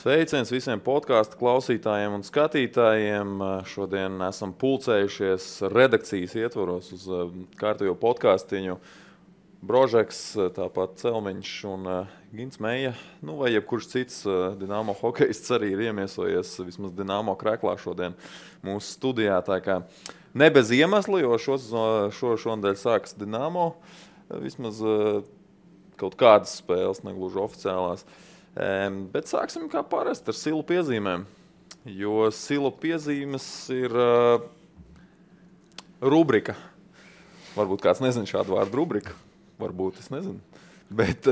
Sveiciens visiem podkāstu klausītājiem un skatītājiem. Šodien esam pulcējušies redakcijas ietvaros uz kārtējo podkāstiņu. Brožeks, tāpat Celmiņš un Gins Meija, vai jebkurš cits Dinamo hokejists arī ir iemiesojies vismaz Dinamo kreklā šodien mūsu studijā. Tā kā ne bez iemesla, jo šonadēļ sākas Dinamo, vismaz kaut kādas spēles, negluži oficiālās. Bet sāksim kā parasti ar silu piezīmēm, jo silu piezīmes ir rubrika. Varbūt kāds nezina šādu vārdu rubrika, varbūt es nezinu. Bet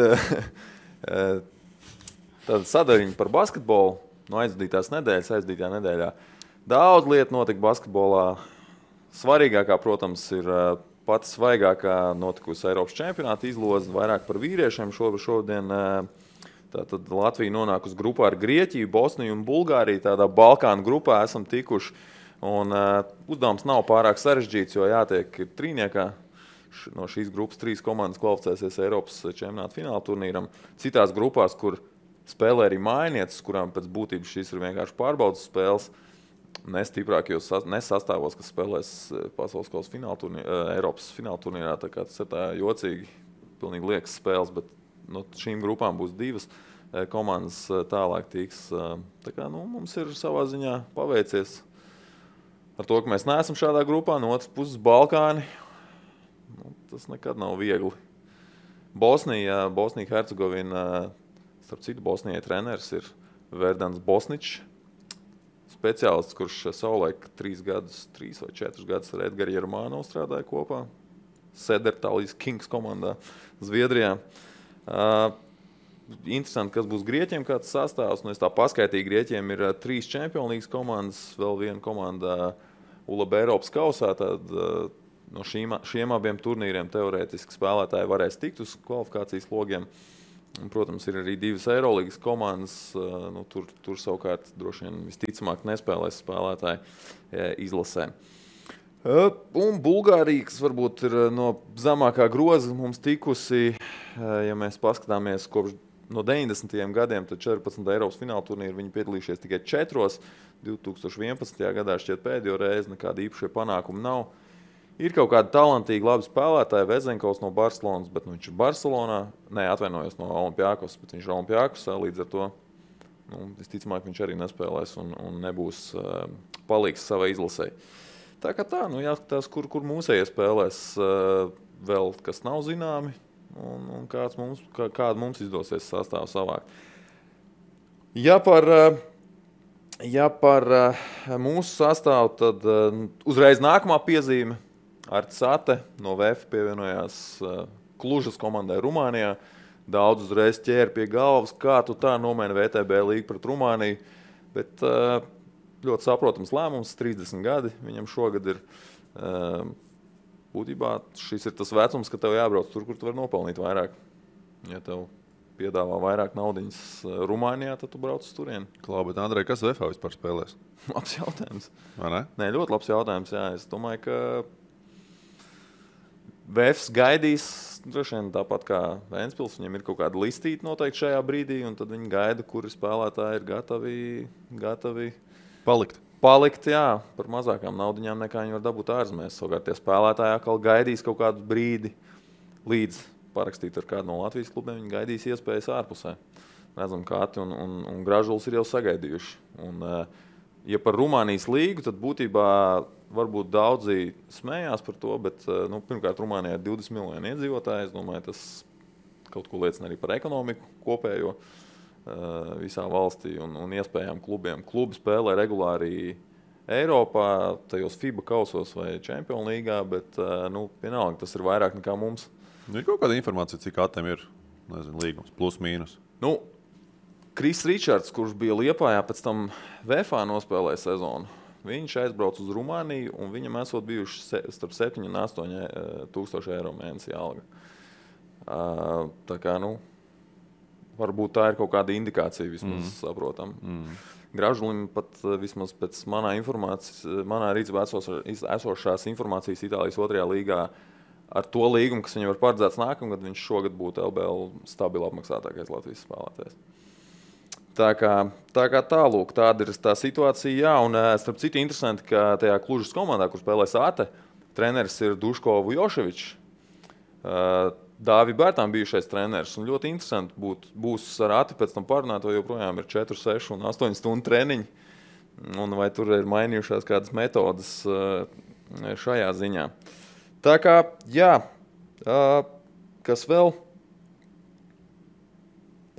tāda sadaļiņa par basketbolu no aizdītajā nedēļā. Daudz lietu notika basketbolā. Svarīgākā, protams, ir pati svaigākā notikusi Eiropas čempionāta izloze, vairāk par vīriešiem šodien. Tātad Latvija nonāk uz grupā ar Grieķiju, Bosniju un Bulgāriju. Tādā Balkānu grupā esam tikuši. Un uzdevums nav pārāk sarežģīts, jo jātiek ir trīniekā. No šīs grupas 3 komandas kvalificēsies Eiropas čempionāta fināla turnīram. Citās grupās, kur spēlē arī mājinieces, kurām pēc būtības šīs ir vienkārši pārbaudas spēles, nestiprākajos nesastāvos, kas spēlēs pasaules kausa Eiropas fināla turnīrā. Tā kā tas ir tā jocīgi, pilnīgi liekas spēles, bet no šīm grupām būs 2 komandas tālāk tiks. Tā kā, mums ir savā ziņā paveicies ar to, ka mēs neesam šādā grupā. No otras puses Balkāni, tas nekad nav viegli. Bosnija Hercegovina, starp citu Bosnijai treneris ir Verdans Bosničs, speciālists, kurš savulaik 3 vai 4 gadus ar Edgaru Jermānovu strādāja kopā. Sedertalijas Kings komandā Zviedrijā. Interesanti, kas būs Grieķiem, kāds sastāvs. Es tā paskaitīju, Grieķiem ir 3 Champions League komandas, vēl viena komanda ULAB Eiropas kausā. Tad no šiem abiem turnīriem teorētiski spēlētāji varēs tikt uz kvalifikācijas logiem. Un, protams, ir arī 2 Eirolīgas komandas. Tur savukārt droši vien visticamāk nespēlēs spēlētāji izlasē. Un Bulgārija, kas varbūt ir no zemākā groza mums tikusi, ja mēs paskatāmies kopš no 90. gadiem, tad 14. Eiropas fināla turnīru viņi piedalījušies tikai 4. 2011. gadā šķiet pēdējo reizi, nekāda īpašie panākumi nav. Ir kaut kādi talantīgi labi spēlētāji, Vezenkovs no Barcelonas, bet viņš ir Barcelonā, atvainojos no Olimpiakos, bet viņš ir Olimpiakosā, līdz ar to visticamāk viņš arī nespēlēs un nebūs palīgs savai izlasei. Tā kā tā, jāskatās, kur mūsējie spēlēs vēl, kas nav zināmi, un kādu mums izdosies sastāvu savākt. Ja par mūsu sastāvu, tad uzreiz nākamā piezīme. Artis Ate no VF pievienojās Klužas komandai Rumānijā. Daudz uzreiz ķēra pie galvas, kā tu tā nomaini VTB līgu pret Rumāniju, bet ļoti saprotams lēmums, 30 gadi viņam šogad ir. Būtībā šis ir tas vecums, ka tev jābrauc tur, kur tu vari nopelnīt vairāk. Ja tev piedāvā vairāk naudiņas Rumānijā, tad tu brauc uz turieni. Klau, bet Andrej, kas VFā vispār spēlēs? Labs jautājums. Vai ne? Nē, ļoti labs jautājums, jā. Es domāju, ka VFs gaidīs, droši vien tāpat kā Ventspils, viņiem ir kaut kāda listīta noteikti šajā brīdī, un tad viņi gaida, kuri spēlētāji ir gatavi Palikt, jā, par mazākām naudiņām nekā viņi var dabūt ārzemēs. Savukārt tie spēlētāji atkal gaidīs kaut kādu brīdi līdz parakstīt ar kādu no Latvijas klubiem, viņi gaidīs iespējas ārpusē. Redzam, kā Ati un Gražulis ir jau sagaidījuši. Un, ja par Rumānijas līgu, tad būtībā varbūt daudzi smējās par to, bet pirmkārt Rumānijā ir 20 miljoni iedzīvotāji. Es domāju, tas kaut ko liecina arī par ekonomiku kopējo visā valstī un iespējām klubiem. Klubi spēlē regulāri Eiropā, tajos FIBA kausos vai Champions līgā, bet vienalga tas ir vairāk nekā mums. Ir kaut kāda informācija, cik Atem ir, līgums, plus, mīnus? Kris Ričards, kurš bija Liepājā, pēc tam VFā nospēlēja sezonu. Viņš aizbrauc uz Rumāniju un viņam esot bijuši starp 7 un 8 tūkstoši eiro mēnesī alga. Tā kā, varbūt tā ir kaut kāda indikācija, vismaz saprotam. Gražulim pat vismaz pēc manā rīcībā esošās informācijas Itālijas 2. līgā ar to līgumu, kas viņam var paredzēts nākamgad, viņš šogad būtu LBL stabili apmaksātākais Latvijas spēlētājs. Tā kā tālūk, tāda ir tā situācija. Jā, un starp citu interesanti, ka tajā Klužas komandā, kur spēlē Sāte, treneris ir Duško Vujoševičs. Dāvi Bērtām bijušais treneris. Un ļoti interesanti būs ar Ati pēc tam parunāt, vai joprojām ir 4, 6 un 8 stundu treniņi. Un vai tur ir mainījušās kādas metodas šajā ziņā. Tā kā, jā, kas vēl?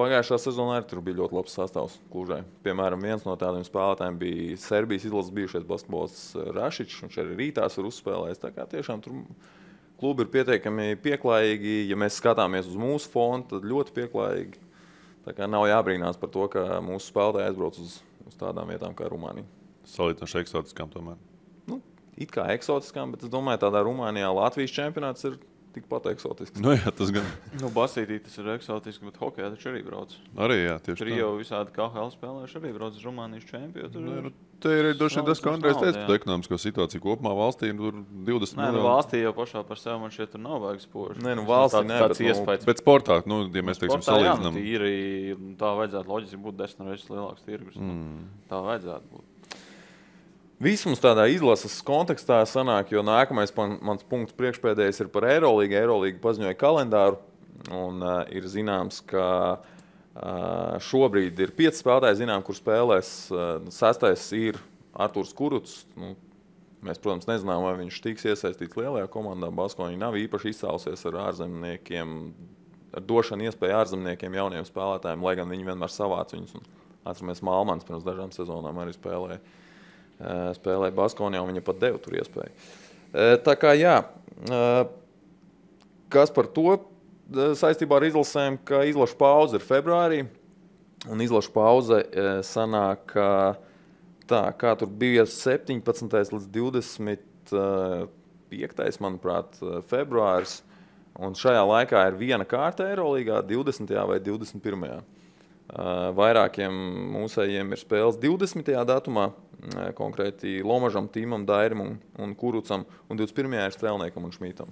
Pagājušā sezonā arī tur bija ļoti labs sastāvs Klužai. Piemēram, viens no tādiem spēlētājiem bija Serbijas izlases bijušais basketbolists Rašičs, viņš arī rītās ir uzspēlējis. Tā kā tiešām tur klubi ir pietiekami pieklājīgi. Ja mēs skatāmies uz mūsu fonu, tad ļoti pieklājīgi. Tā kā nav jābrīnās par to, ka mūsu spēlētāji aizbrauc uz tādām vietām kā Rumānija. Salīdzinoši eksotiskām tomēr. It kā eksotiskām, bet es domāju, tādā Rumānijā Latvijas čempionāts ir tikpat eksotisks. Nu jā, tas gan. Basītī tas ir eksotiski, bet hokejā taču arī brauc. Arī jā, tieši tur jau visādi KHL spēlējuši arī brauc uz Rumānijas čempionu. Te ir droši vien tas, ko Andrejs teica par ekonomisko situāciju kopumā valstī. Tur 20 miljoni. Valstī jau pašā par sevi man šķiet tur nav vajag spoži. Nē, valstī nē, tāds iespējas. Bet sportā, ja mēs teiksim salīdzinām. Tā vajadzētu loģiski būt 10 reizes lielāks tirgus. Tā vajadzētu būt. Viss mums tādā izlases kontekstā sanāk, jo nākamais mans punkts priekšpēdējais ir par Eirolīgu. Eirolīga paziņoja kalendāru, un ir zināms, ka šobrīd ir 5 spēlētāji, kur spēlēs. 6. ir Artūrs Kuruts. Mēs, protams, nezinām, vai viņš tiks iesaistīts lielajā komandā. Baskoņi nav īpaši izcēlusies ar ārzemniekiem, ar došanu iespēju ārzemniekiem, jauniem spēlētājiem, lai gan viņi vienmēr savāc viņus. Atceramies, Malmans pirms dažām sezonām arī spēlēja Baskonijā, un viņa pat deva tur iespēju. Tā kā jā, kas par to saistībā ar izlasēm, ka izlašu pauze ir februārī, un izlašu pauze sanāk, kā tur bija 17. līdz 25. manuprāt, februāris, un šajā laikā ir viena kārta Eirolīgā, 20. vai 21. Vairākiem mūsējiem ir spēles 20. datumā, konkrēti Lomažam, Tīmam, Dairim un Kurucam, un 21. ir Strēlniekam un Šmītam.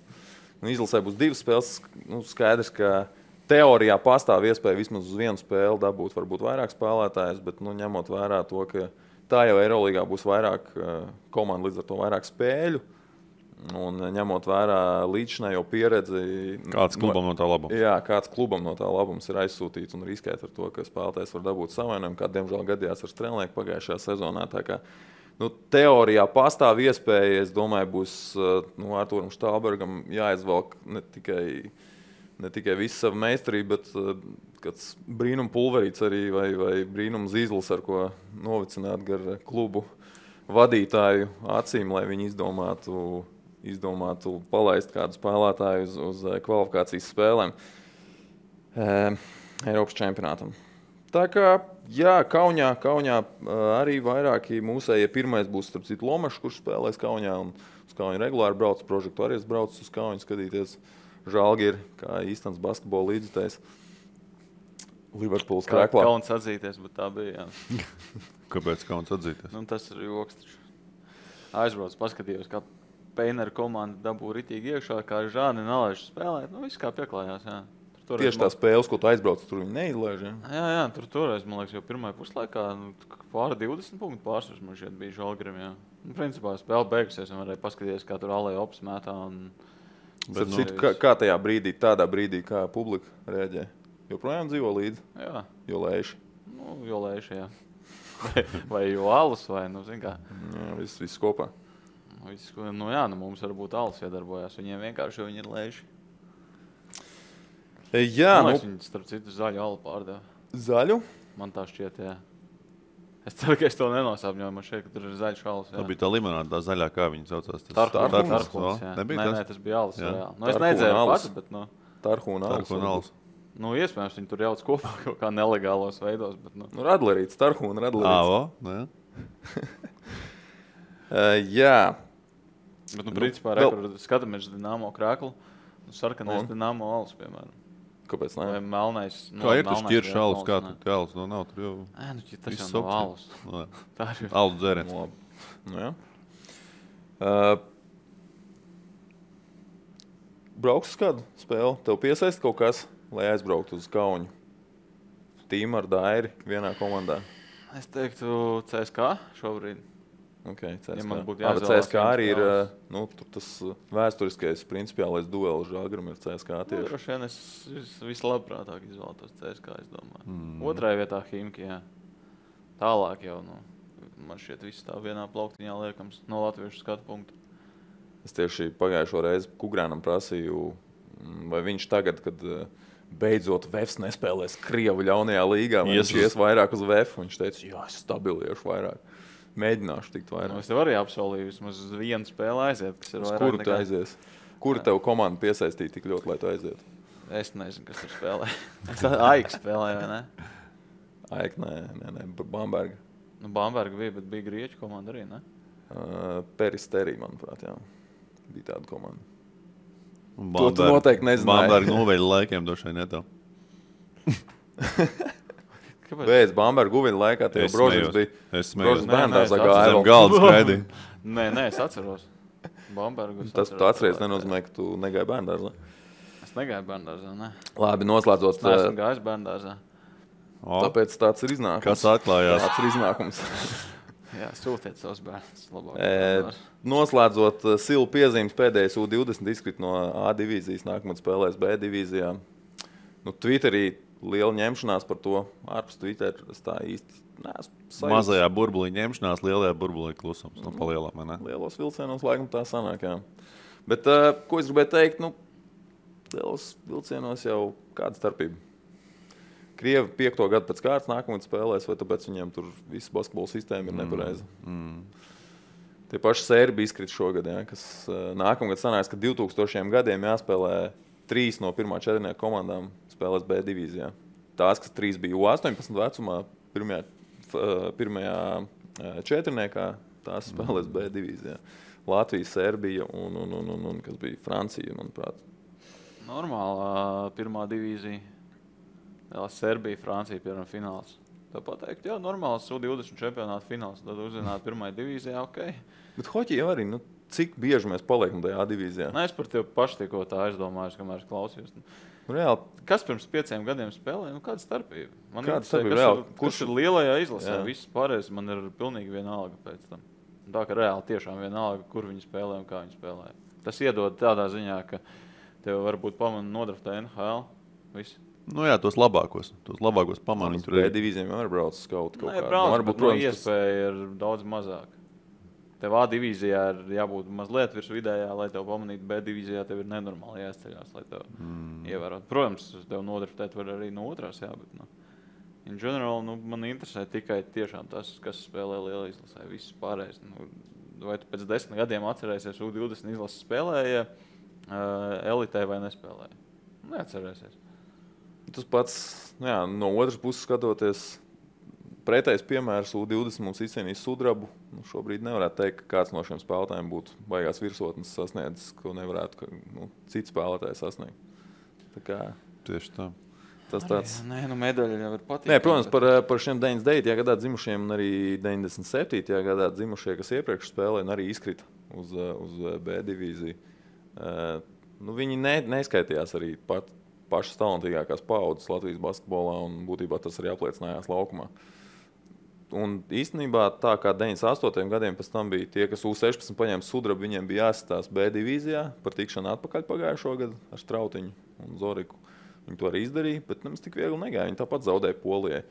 Izlasē būs 2 spēles. Skaidrs, ka teorijā pastāv iespēja vismaz uz vienu spēli dabūt varbūt vairāk spēlētājus, bet ņemot vērā to, ka tā jau Eirolīgā būs vairāk komandu, līdz ar to vairāk spēļu. Un ņemot vērā līdzinējo pieredzi, kāds klubam no tā labums? Jā, kāds klubam no tā labums ir aizsūtīts un riskēt ar to, ka spēlētājs var dabūt savainojumu, kā diemžēl gadījās ar Strēlnieku pagājušajā sezonā. Tā kā teorijā pastāv iespēja, es domāju, būs Artūram Štālbergam jāizvelk ne tikai visu savu meistarību, bet kāds brīnum pulverīts arī vai brīnum zīzlis, ar ko novicināt gar klubu vadītāju acīm, lai viņi izdomātu palaist kādu spēlētāju uz kvalifikācijas spēlēm Eiropas čempionātam. Tā kā, jā, Kaunijā arī vairāki mūsējie. Pirmais būs, starp citu, Lomašs, kurš spēlēs Kaunijā, un uz Kauniju regulāri brauc, Prožektu arī brauc uz Kauniju skatīties Žalgiri, kā īstens basketbola līdzutējs. Liverpools krēklā. Kauns atzīties, bet tā bija, jā. Kāpēc kauns atzīties? Tas ir joks. Aizbrauc, paskatījos, kā Peinera komanda dabū ritīgi iekšā, kā Žāni nalaiž spēlēt. Viss kā pieklājās, jā. Tieši tā spēles, ko tu aizbrauc, tur viņi neizlaiž, jā? Jā, toreiz, man liekas, jau pirmajā puslaikā pāri 20 punktu pārsvars man šeit bija Žalgirim, jā. Principā spēle beigusies, un varēja paskatīties, kā tur Alei Ops mētā. Kā tajā brīdī, tādā brīdī, kā publika reaģē? Joprojām dzīvo līdzi? Jā. Jo lēši? Jo lēši, jā. vai jo alus, vai, zin kā. Jā, viss kopā. Mums varbūt alus iedarbojās. Viņiem vienkārši viņi ir lēši. Jā, viņi starp citu zaļu alu pārdeva. Zaļu? Man tā šķiet, jā. Es ceru, ka es to nenosāpņoju. Man šeit, ka tur ir zaļš alus. Tā bija tā limonāda, tā zaļā, kā viņi saucās. Tarhuns, jā. Nē, tas bija alus. Es nedzēru pats, bet Tarhuna alus. Iespējams, viņi tur jauc kopā kaut kā nelegālos veidos. Bet, Radlerīts, Tarhuna Radlerīts. Jā. Bet, principā, skatāmies Dinamo krēklu, sarkanais Dinamo alus, piemēram. Kāpēc ne? Vai melnais. Kā ir tas ķirš alus, kā tur alus? Nav tur jau. Tas jau nav alus. Tā ir. Alus dzēriens. Jā. Brauks uz kādu spēli? Tev piesaist kaut kas, lai aizbrauktu uz Kaunu? Tīmu ar Dairi vienā komandā? Es teiktu CSK šobrīd. Okay, CSK. Ja man būtu CSK arī ir tas vēsturiskais principiālais duels Žalgirim ir CSK tieši. Droši vien es vislabprātāk izvēlētos CSK, es domāju. Otrajā vietā Himki, jā. Tālāk jau, man šķiet viss tā vienā plauktiņā liekams no latviešu skatu punktu. Es tieši pagājušo reizi Kugrānam prasīju, vai viņš tagad, kad beidzot Vefs nespēlēs Krievu ļaunajā līgā, vai viņš ies vairāk uz Vefu. Viņš teica, jā, es stabiliešu vairāk. Mēģināšu tikt vairāk. Es tev arī apsolīju vismaz vienu spēli aiziet, kas ir vairāk kuru tu aizies? Kuru tev komanda piesaistīja tik ļoti, lai tu aizietu? Es nezinu, kas tur spēlē. Es Aik spēlēju, vai ne? Aik, nē, Bamberga. Bamberga bija, bet bija grieķu komanda arī, ne? Peristerī, manuprāt, jā. Bija tāda komanda. To tu noteikti nezināji. Bamberga noveļa laikiem došai netev. Pēc Bamberga guviņa laikā tev Brožins bija. Es smējos. Bērndārzā gāja. Zem galda skraidīja. Nē, es atceros. Bambergu es Tas tu atceries nenozīmē, ka tu negāji bērndārzā. Es negāju bērndārzā, ne. Labi, noslēdzot. Es neesmu gājis bērndārzā. Tāpēc tāds ir iznākums. Kas atklājās? Tāds ir iznākums. Jā, sūtiet savus bērnus labāk. Noslēdzot Silu piezīmes pēdējais U20 izkrit no A divīzijas, nākamad spēlēs B divīzijā. Twitterī liela ņemšanās par to. Ārpus Twitter es tā īsti neesmu sajūtas. Mazajā burbulī ņemšanās, lielajā burbulī klusums. No palielām, vai ne? Lielos vilcienos laikam tā sanāk, jā. Bet, ko es gribēju teikt, lielos vilcienos jau kāda starpība. Krievi 5. gadu pēc kārtas nākamad spēlēs, vai tāpēc viņiem tur viss basketbola sistēma ir nepareiza. Tie paši Sērbi izkrit šogad, jā, kas nākamgad sanāks, ka 2000 gadiem jāspēlē 3 no 1. četrnieka komandām spēlēs B divīzijā. Tās, kas 3 bija U18 vecumā, pirmajā četrniekā, tās spēlēs B divīzijā. Latvija, Serbija un kas bija Francija, manuprāt. Normālā 1. divīzija. Serbija, Francija, piemēram, fināls. Tā pateikt, jā, normāls U20 čempionāta fināls. Tad uzzināt 1. divīzijā, ok. Bet hoķi jau arī, cik bieži mēs paliekam tajā divīzijā? Es par tevi paši tikko tā aizdomājos, kamēr es klausījos. Reāli. Kas pirms 5 gadiem spēlēja? Kāda starpība? Kāda starpība? Kurš ir lielajā izlasē? Viss pārējais man ir pilnīgi vienalga pēc tam. Tā ka reāli tiešām vienalga, kur viņi spēlē un kā viņi spēlē. Tas iedod tādā ziņā, ka tev varbūt pamana nodraftē NHL. Viss. Jā, tos labākos pamanīt. B divīzijām var brauc uz kaut kādu. Nē, brauc, bet iespēja ir daudz mazāk. Tev A divīzijā ir jābūt mazliet virs vidējā, lai tev pamanītu. B divīzijā tev ir nenormāli jāizceļās, lai tev ievērot. Protams, tev nodraftēt var arī no otrās, jā, bet in general, man interesē tikai tiešām tas, kas spēlē liela izlasē. Viss pārējais. Vai tu pēc 10 gadiem atcerēsies U20 izlases spēlēja elitē vai nespēlēja? Neatcerēsies. Tas pats, no otras puses skatoties, pretējs piemērs U20 mums izcīnīs sudrabu. Šobrīd nevarētu teikt, ka kāds no šiem spēlētājiem būtu baigās virsotnes sasniedzis, ko nevarētu cits spēlētājs sasniegt. Tā kā tieši tā. Tas tāds. Nē, medaļa jau ir patīk. Nē, protams, par šiem 99. gadā dzimušiem un arī 97. gadā dzimušie, kas iepriekš spēlēja un arī izkrita uz B divīziju. Viņi neskaitījās arī pašas talantīgākās paaudzes Latvijas basketbolā, un būtībā tas arī apliecinājās laukumā. Un īstenībā tā kā 98. gadiem pēc tam bija tie, kas U16 paņēma sudrabu, viņiem bija jāsastās B divīzijā par tikšanu atpakaļ pagājušo gadu ar Strautiņu un Zoriku. Viņi to arī izdarīja, bet nemaz tik viegli negāja. Viņi tāpat zaudēja Polijai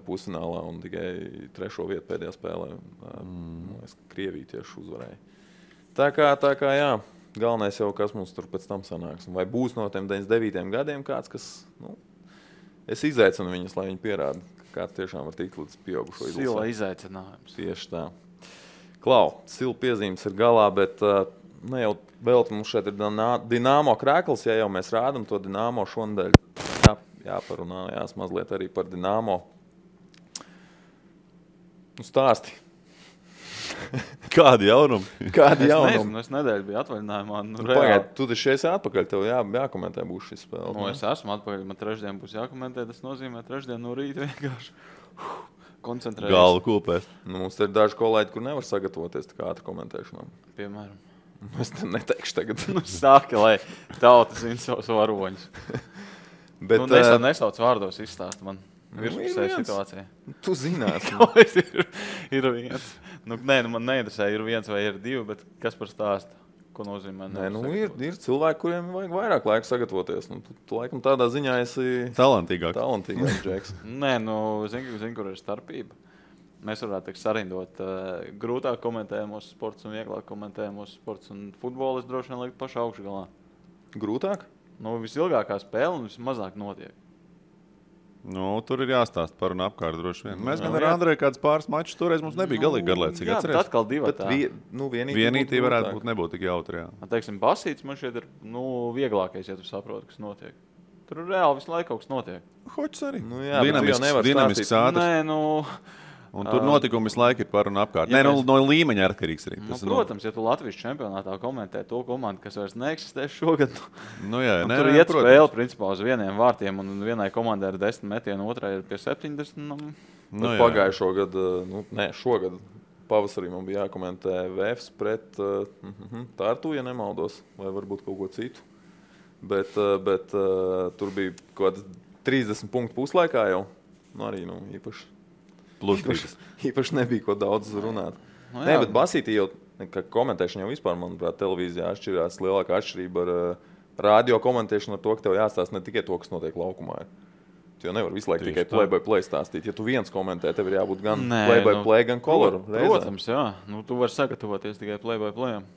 pusfinālā un tikai 3. vietu pēdējā spēlē. Krievija tieši uzvarēja. Tā kā jā. Galvenais jau, kas mums tur pēc tam sanāks. Vai būs no tiem 99. gadiem kāds, kas... Es izaicinu viņus, lai viņi pierāda, ka kāds tiešām var tikt līdz pieaugušo izlasē. Sila izaicinājums. Tieši tā. Klau, Sila piezīmes ir galā, bet ne jau vēl mums šeit ir Dinamo krēkls, ja jau mēs rādam to Dinamo šonadēļ. Jāparunājās mazliet arī par Dinamo. Stāsti. Kādi jaunumi? Es nedēļu biju atvaļinājumā. Pagaid, tu taču esi atpakaļ, tev jākomentē būs šis spēle. Es esmu atpakaļ, man trešdien būs jākomentē, tas nozīmē trešdien no rīta vienkārši koncentrēties. Galva kūpēs. Mums ir daži kolēģi, kur nevar sagatavoties tā kā ātri komentēšanām. Piemēram. Es te neteikšu tagad. Sāki, lai tauta zina savus varoņus. Bet, nesauc vārdos izstāst man. virspusē situācija. Tu zināt. ir viens. Man neinteresē, ir viens vai ir divi, bet kas par stāstu? Ko nozīmē? Ir cilvēki, kuriem vajag vairāk laika sagatavoties. Tu laikam tādā ziņā esi talantīgāks, Džeks. Zini, kur ir starpība. Mēs varētu sarindot grūtāk komentējamos sports un vieglāk komentējamos sports un futbolu. Es droši vien lieku pašu augšgalā. Grūtāk? Visilgākā spēle un vismazāk notiek. Tur ir jāstāsta par un apkārt droši vien. Mēs gan ar Andreju kāds pāris mačus toreiz mums nebija galīgi garlaicīgi. Jā, bet atkal divatā. Vienītī varētu būt nebūt tik jautri, jā. Teiksim, basīts man šeit ir vieglākais, ja tu saproti, kas notiek. Tur reāli visu laiku kaut kas notiek. Hoķis arī. Dinamisks ātrs. Un tur notikumi visu laiku ir par un apkārt. No līmeņa atkarīgs arī. Protams, ja tu Latvijas čempionātā komentē to komandu, kas vairs neeksistē šogad, tur iet spēle principā uz vieniem vārtiem un vienai komandai ir 10 metienu, otrai ir pie 70. Pagājušo gadu, šogad pavasarī man bija jākomentē VFs pret Tartu, ja nemaldos, vai varbūt kaut ko citu. Bet tur bija kaut kāds 30 punktu puslaikā jau. Arī īpaši. Īpaši nebija ko daudz runāt. Bet basītī jau, komentēšana jau vispār, manuprāt, televīzijā atšķirās. Lielākā atšķirība ar radio komentēšanu ar to, ka tev jāstāsta ne tikai to, kas notiek laukumā. Tu jau nevar visu laiku tikai play-by-play stāstīt. Ja tu viens komentē, tev ir jābūt gan play-by-play, gan koloru. Protams, jā. Tu vari sagatavoties tikai play-by-playam.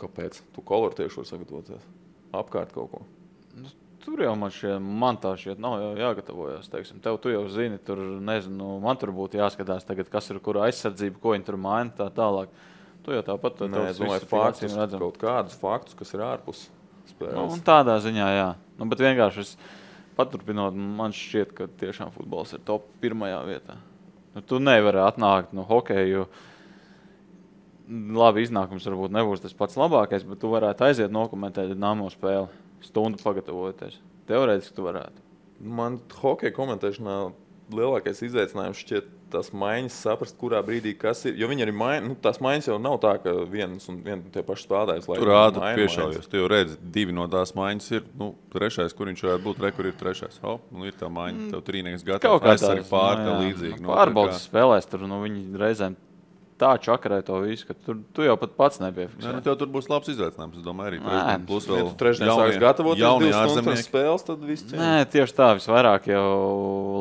Kāpēc? Tu koloru tieši var sagatavoties. Apkārt kaut ko. Tur jau man tā šķiet nav jāgatavojas. Tev tu jau zini, tur nezinu, man tur būtu jāskatās tagad, kas ir kura aizsardzība, ko viņi tur maina tā tālāk. Tu jau tāpat es domāju, kaut kādus faktus, kas ir ārpus spēles. Tādā ziņā, jā. Bet vienkārši paturpinot, man šķiet, ka tiešām futbols ir top 1. vietā. Tu nevari atnākt no hokeju. Labi, iznākums varbūt nebūs tas pats labākais, bet tu varētu aiziet nokomentēt Dinamo spēli. Stundu pagatavoties. Teorētiski tu varētu. Man hokeja komentēšanā lielākais izaicinājums šķiet tās maiņas saprast, kurā brīdī kas ir. Jo viņi arī tās maiņas jau nav tā, ka viens un tie paši spēlētājs. Tur ātri piešaujies. Tu jau redzi, 2 no tās maiņas ir. Trešais, kur viņš varētu būt, kur ir trešais. Ir tā maiņa, tev trīnieks gatavs. Aizsargi pār, tev līdzīgi. Pārbaudas spēlēs tur, viņi reizēm tā čakarē to visu, ka tu jau pat pats nepiefiksē. Tev tur būs labs izaicinājums, es domāju, arī. Plus vēl trešdien sāks gatavoties 2 stundas spēles, tad viss cien. Nē, tieši tā, visvairāk jau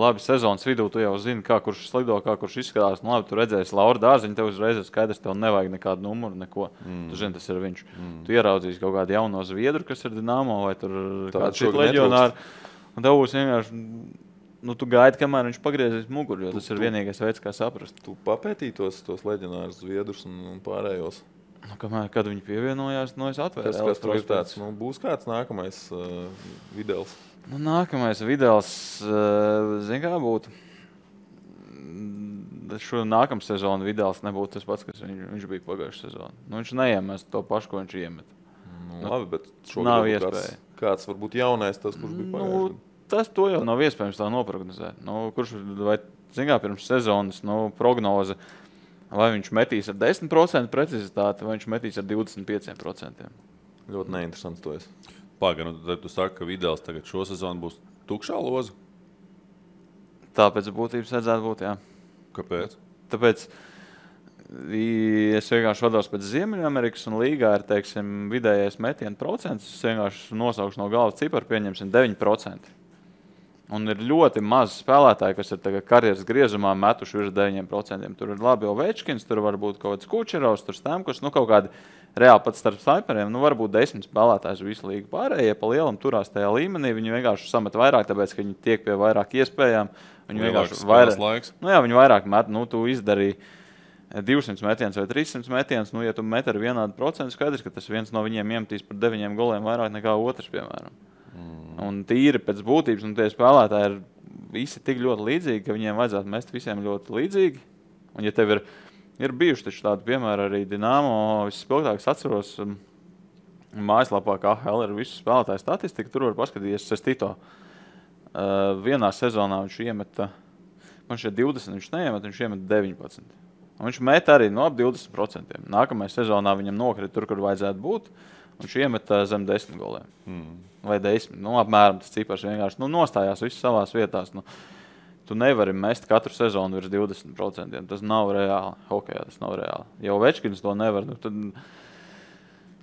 labi sezonas vidū, tu jau zini, kā kurš slido, kā kurš izskatās. Labi, tu redzēsi Laura Dārziņu, tev uzreiz ir skaidrs, tev nevajag nekādu numuru, neko. Tu zini, tas ir viņš. Tu ieraudzīsi kaut kādu jauno zviedru, kas ir Dinamo, vai tur kādu citu leģionāru. Un tev būs vienkārši... tu gaidi, kamēr viņš pagriezīs muguru, jo tas ir vienīgais veids, kā saprast. Tu papētīji tos leģionārus zviedrus un pārējos? Kad viņi pievienojās, es atvēru. Kas tur ir tāds? Būs kāds nākamais Videls? Nākamais Videls, zini kā būtu? Šo nākamu sezonu Videls nebūtu tas pats, kas viņš bija pagājušajā sezonā. Viņš neiemest to pašu, ko viņš iemet. Labi, bet nav iespēja. Kāds varbūt jaunais tas, kurš bija pagājušajā? To jau nav iespējams tā noprognozēt. Kurš vai pirms sezonas prognoze, vai viņš metīs ar 10% precizitāti, vai viņš metīs ar 25%. Ļoti neinteresants to es. Pagaidām, tad tu saki, ka Videls tagad šo sezonu būs tukšā loza? Tāpēc būtības vajadzētu būt, jā. Kāpēc? Tāpēc es vienkārši vados pēc Ziemeļamerikas un līgā ir, vidējais metienu procents. Es vienkārši nosaukšu no galvas ciparu, pieņemsim 9%. Un ir ļoti maz spēlētāji, kas ir tagad karjeras griezumā metuši virs 9%. Tur ir labi Ovečkins, tur var būt kaut kāds Kučerovs, tur Stamkos, kaut kādi reāli pat starp sniperiem. Varbūt 10 spēlētājs visu līgu pārējie pa lielam turās tajā līmenī. Viņi vienkārši samet vairāk, tāpēc, ka viņi tiek pie vairāk iespējām. Viņi vienkārši vairāk, viņi vairāk met, tu izdarīji 200 metienus vai 300 metienus, ja tu met ar vienādu procentu, skaidrs, ka tas viens no viņiem iemetīs par 9 goliem vairāk nekā otrs, piemēram. Un tīri pēc būtības, un tie spēlētāji ir visi tik ļoti līdzīgi, ka viņiem vajadzētu mest visiem ļoti līdzīgi. Un ja tev ir bijuši taču tādi piemēri arī Dinamo, visspilgtākais atceros mājaslapā, kā AHL ir visu spēlētāju statistika, tur var paskatīties Sestito. Vienā sezonā viņš iemeta, man šeit 20, viņš neiemet, viņš iemet 19. Un viņš met arī ap 20%. Nākamajā sezonā viņam nokrita tur, kur vajadzētu būt. Viņš iemeta zem 10 goliem. Vai 10. Apmēram tas cipars vienkārši nostājās viss savās vietās. Tu nevari mest katru sezonu virs 20%. Tas nav reāli. Hokejā tas nav reāli. Ja Ovečkins to nevar, tad,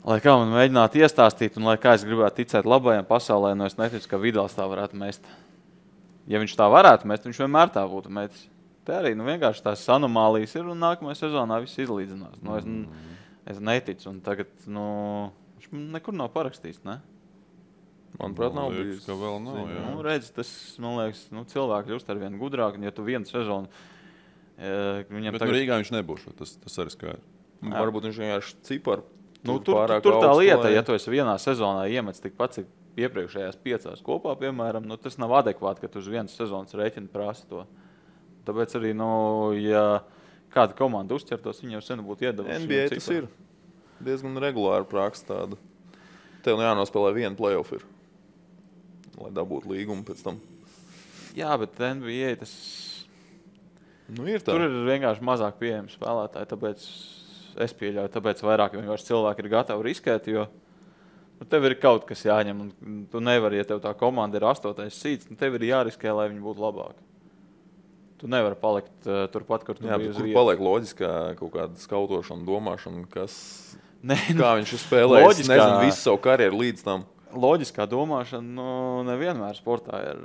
lai kā man mēģinātu iestāstīt, un lai kā es gribētu ticēt labajam pasaulē, es neticu, ka Vidals tā varētu mest. Ja viņš tā varētu mest, viņš vienmēr tā būtu metis. Te arī vienkārši tās anomālijas ir, un nākamajā sezonā viss izlīdzinās. Es neticu, un tagad viņš nekur nav parakstījis, ne? Manuprāt, nav bijis. Ka vēl nav, jā. Redz, tas, man liekas, cilvēki kļūst ar vien gudrāk, un ja tu vienu sezonu... Bet Rīgā viņš nebūs, tas arī skaidrs. Varbūt viņš vienkārši ciparu. Tur tā lieta, ja tu esi vienā sezonā iemets tikpat, cik iepriekšējās 5 kopā, piemēram, tas nav adekvāti, ka tu uz vienas sezonas rēķinu prasa to. Tāpēc arī, ja kāda komanda uzķertos, viņi jau sen būtu iedevuši. NBA tas ir diezgan regulāri praksa tāda. Tev jānospēlē vienu playoff ir, lai dabūtu līgumu pēc tam. Jā, bet NBA tas... ir tā. Tur ir vienkārši mazāk pieejami spēlētāji, tāpēc es pieļauju, tāpēc vairāk vienkārši cilvēki ir gatavi riskēt, jo tev ir kaut kas jāņem, un tu nevari, ja tev tā komanda ir 8. seeds, tev ir jāriskē, lai viņi būtu labāki. Tu nevari palikt turpat, kur tu biji uz vietas. Kur paliek loģiskā kaut kāda skautošana, domāšana, kā viņš ir spēlējis, nezinu, visu savu karjeru līdz tam. Loģiskā domāšana, nevienmēr sportā ir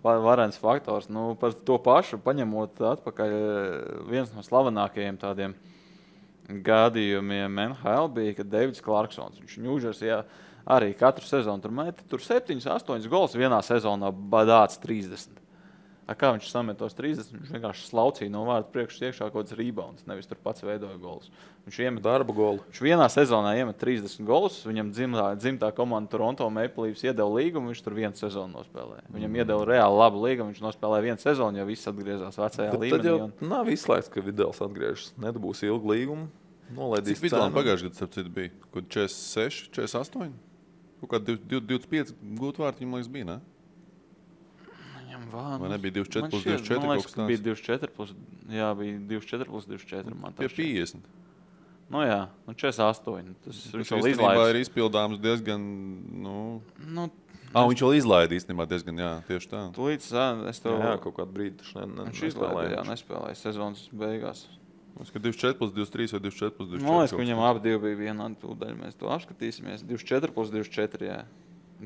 varens faktors. Par to pašu paņemot atpakaļ viens no slavenākajiem tādiem gadījumiem NHL bija, kad Davids Clarksons, viņš Ņūdžersijā arī katru sezonu tur meta, tur 7-8 gols vienā sezonā badāts 30. Kā viņš samet tos 30, viņš vienkārši slaucīja no vārda priekšas iekšā kaut kāds rebounds, nevis tur pats veidoja golus. Viņš iemet darba golu. Viņš vienā sezonā iemet 30 golus, viņam dzimtā komanda Toronto Maple Leafs iedeva līgumu, viņš tur vienu sezonu nospēlēja. Viņam iedeva reāli labu līgumu, viņš nospēlēja vienu sezonu, jo viss atgriezās vecajā līmenī. Tad jau nav izslēgts, ka Vidals atgriežas. Nedabūs ilgu līgumu, nolaidīs cenu. Cik Vidalam pagājušajā gadā, starp citu, bija? Kaut 46, 48? Kaut kā 25 gūt vārti, viņam liekas, bija, ne? Vai nebija 24 plus 24? Man liekas, ka bija 24 plus 24. Man pie 50. Jā, 48. Tas viņš vēl izlaidīs. Ir izpildāms diezgan, viņš vēl izlaidīs diezgan, jā, tieši tā. Tūlīt, es tev... Jā, kaut kādu brīdi viņš izlaidīja, nespēlēja sezonas beigās. Es ka 24 plus 23 vai 24 plus 24. Man liekas, ka viņam abi divi bija vienādi tūdaļ. Mēs to apskatīsimies. 24 plus 24, jā.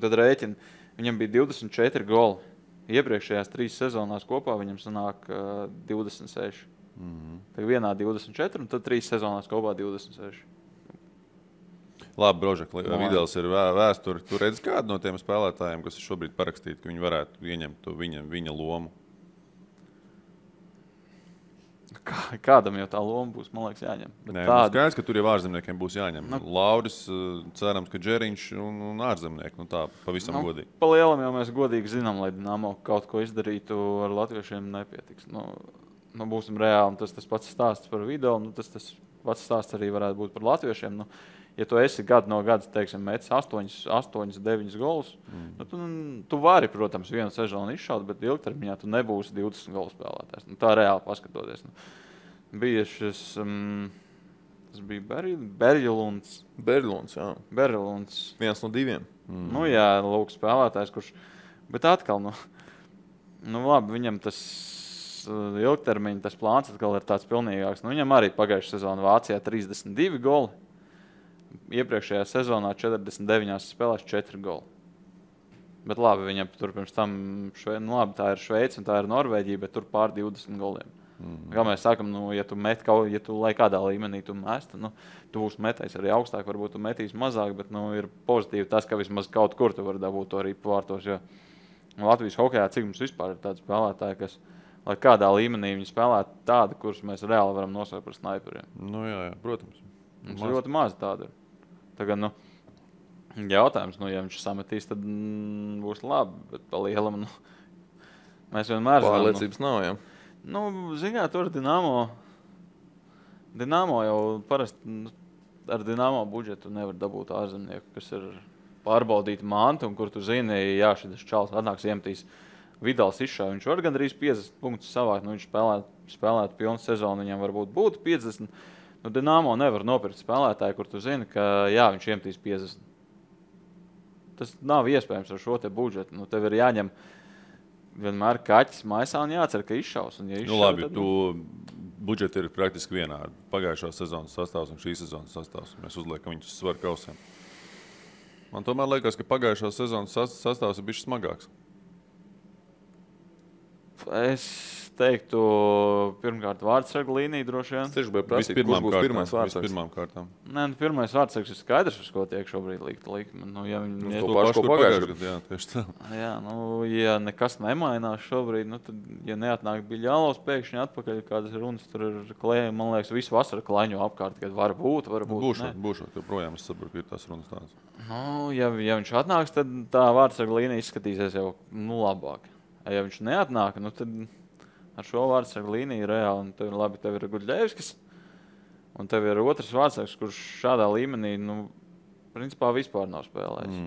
Tad rēķini. Viņam bija 24 goli. Iepriekšējās 3 sezonās kopā viņam sanāk 26. Tad vienā 24 un tad 3 sezonās kopā 26. Labi, Brožek, Vidals ir vēsturi. Tu redzi kādu no tiem spēlētājiem, kas ir šobrīd parakstīti, ka viņi varētu ieņemt to viņa lomu? Kādam jau tā loma būs, man liekas, jāņem. Nē, skaidrs, ka tur jau ārzemniekiem būs jāņem. Lauris, cerams, ka Džeriņš un ārzemnieki. Tā pavisam godīgi. Pa lielam jau mēs godīgi zinām, lai Dinamo kaut ko izdarītu ar latviešiem nepietiks. Būsim reāli, tas pats stāsts par video, tas pats stāsts arī varētu būt par latviešiem. Ja tu esi gadu no gada, teiksim, metis 8-9 golus, tu vari, protams, vienu sezonu izšaut, bet ilgtermiņā tu nebūsi 20 golu spēlētājs. Tā reāli paskatoties. Bija šis, tas bija Berļulunds. Berļulunds, jā. Berļulunds. Viens no 2. Jā, lūk, spēlētājs, kurš, bet atkal, labi, viņam tas ilgtermiņa, tas plāns atkal ir tāds pilnīgāks. Viņam arī pagājušā sezona Vācijā 32 goli. Iepriekšējā sezonā 49 spēlēs 4 goli. Bet labi, viņam tur pirms tam, tā ir Šveice un tā ir Norvēģija, bet tur pār 20 goliem. Kā mēs sākam, ja tu lai kādā līmenī tu mest, tu būsi metējis arī augstāk, varbūt tu metīs mazāk, bet ir pozitīvi tas, ka vismaz kaut kur tu vari dabūt to arī pārtos, jo Latvijas hokejā, cik mums vispār ir tādi spēlētāji, kas, lai kādā līmenī viņi spēlē tādi, kurus mēs reāli varam nosaukt par snaiperiem. Jā, protams. Mums ļoti maz tāda ir. Tagad, jautājums, ja viņš sametīs, tad būs labi, bet pa lielam, mēs vienmēr zinām. Pārliecības nav, jā. Zināt, tur Dinamo jau parasti ar Dinamo budžetu nevar dabūt ārzemnieku, kas ir pārbaudīti mantu, un kur tu zini, jā, šis čals atnāks iemetīs Vidals izšāja. Viņš var gandrīz 50 punktus savākt, viņš spēlētu pilnu sezonu, viņam varbūt būtu 50. Dinamo nevar nopirkt spēlētāju, kur tu zini, ka jā, viņš iemetīs 50. Tas nav iespējams ar šo te budžetu. Tev ir jāņem vienmēr kaķis maisā un jācer, ka izšaus. Un, ja izšaus, Labi, tad, budžeti ir praktiski vienādi. Pagājušā sezonas sastāvs un šīs sezonas sastāvs. Mēs uzliekam viņus uz svaru kausiem. Man tomēr liekas, ka pagājušā sezonas sastāvs ir bijis smagāks. Es teiktu, pirmkārt, vārdsargu līnija droši vien. Es tieši biju prasīt, kurš būs pirmais vārdsargs. Vispirmām kārtām. Nē, pirmais vārdsargs ir skaidrs, uz ko tiek šobrīd likme. Ja viņi to pašu, ko pagājušajā gadā. Jā, tieši tā. Jā, ja nekas nemainās šobrīd, tad, ja neatnāk Biļālovs pēkšņi atpakaļ, kādas runas tur ir klējumi, man liekas, visu vasaru klaiņo apkārt, kad var būt. Būšot, jo projām es saprotu, ka ir tās runas tādas. Ja viņš atnāks, tad tā vārdsarga līnija izskatīsies jau labāk. Ja viņš neatnāk, tad ar šo vārdsargu līniju reāli, tev ir Guļļevskis, un tev ir otrs vārdsargs, kurš šādā līmenī, principā vispār nav spēlējis.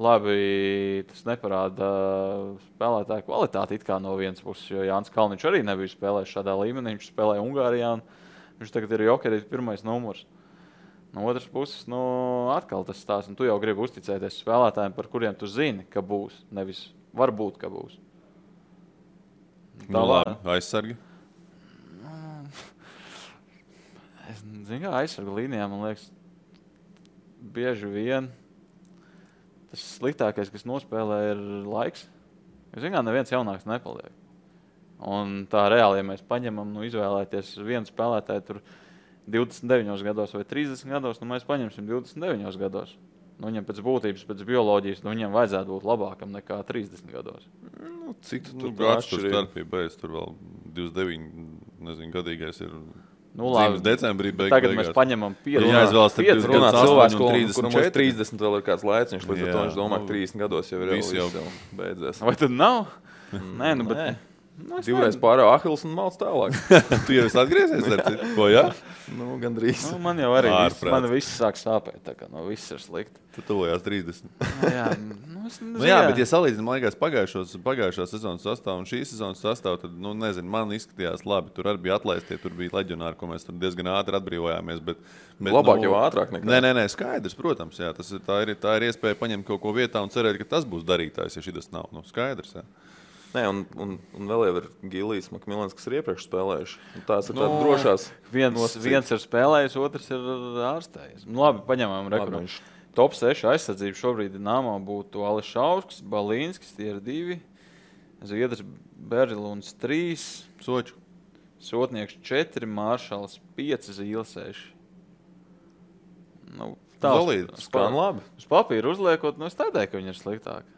Labi, tas neparāda spēlētāju kvalitāti it kā no vienas puses, jo Jānis Kalniņš arī nebija spēlējis šādā līmenī, viņš spēlēja Ungārijā, un viņš tagad ir Jokerīt pirmais numurs. No otras puses, atkal tas stāsts, un tu jau gribi uzticēties spēlētājiem, par kuriem tu zini, ka būs, nevis varbūt, ka būs. Labi, aizsargi? Es zinu, kā aizsargu līnijā, man liekas, bieži vien tas sliktākais, kas nospēlē, ir laiks. Jo, zinu, kā neviens jaunāks nepaliek. Un tā reāli, ja mēs paņemam, izvēlēties vienu spēlētāju tur 29 gados vai 30 gados, mēs paņemsim 29 gados. Viņam pēc būtības, pēc bioloģijas, viņam vajadzētu būt labākam nekā 30 gados. Cik tu tur starpība? Tur vēl 29 gadīgais ir dzīves decembrī beigās. Tagad mēs paņemam 5 cilvēku, kuram uz 30 vēl ir kāds laiciņš, līdz ar to viņš domā, ka 30 gados jau ir jau beidzies. Vai tad nav? Nē, bet... Divreiz pārā Ahils un malc tālāk. Tu jau esi atgriezies ar citu? Ko, jā? Gandrīz. Man jau arī viss sāk sāpēt, tā kā viss ir slikti. Tu tuvojās 30. Jā, bet ja salīdzinām, man liekas, pagājušā sezonas sastāvu un šīs sezonas sastāvu, tad, man izskatījās labi. Tur arī bija atlaistie, tur bija leģionāri, ko mēs tur diezgan ātri atbrīvojāmies. Bet labāk jau ātrāk nekā. Nē, skaidrs, protams, jā. Tā ir iespēja paņemt kaut ko vietā un cerēt, ka tas būs darītājs, ja šitas nav. Skaidrs, jā. Nē, un vēl jau ir Gilijs, Makmilans, kas ir iepriekš spēlējuši. Tās ir tādas drošās. Viens ir spēlējis, otrs ir ārstējis. Labi, paņemam rekuru. Top 6 aizsardzību šobrīd Dinamo būtu Ališausks, Balīnskis, tie ir 2. Zviedrs Berluns 3. Soču. Sotnieks 4, Māršals 5, Zīles 6. Solīdi, skan labi. Uz papīra uzliekot, es tādēļ, ka viņi ir sliktāki.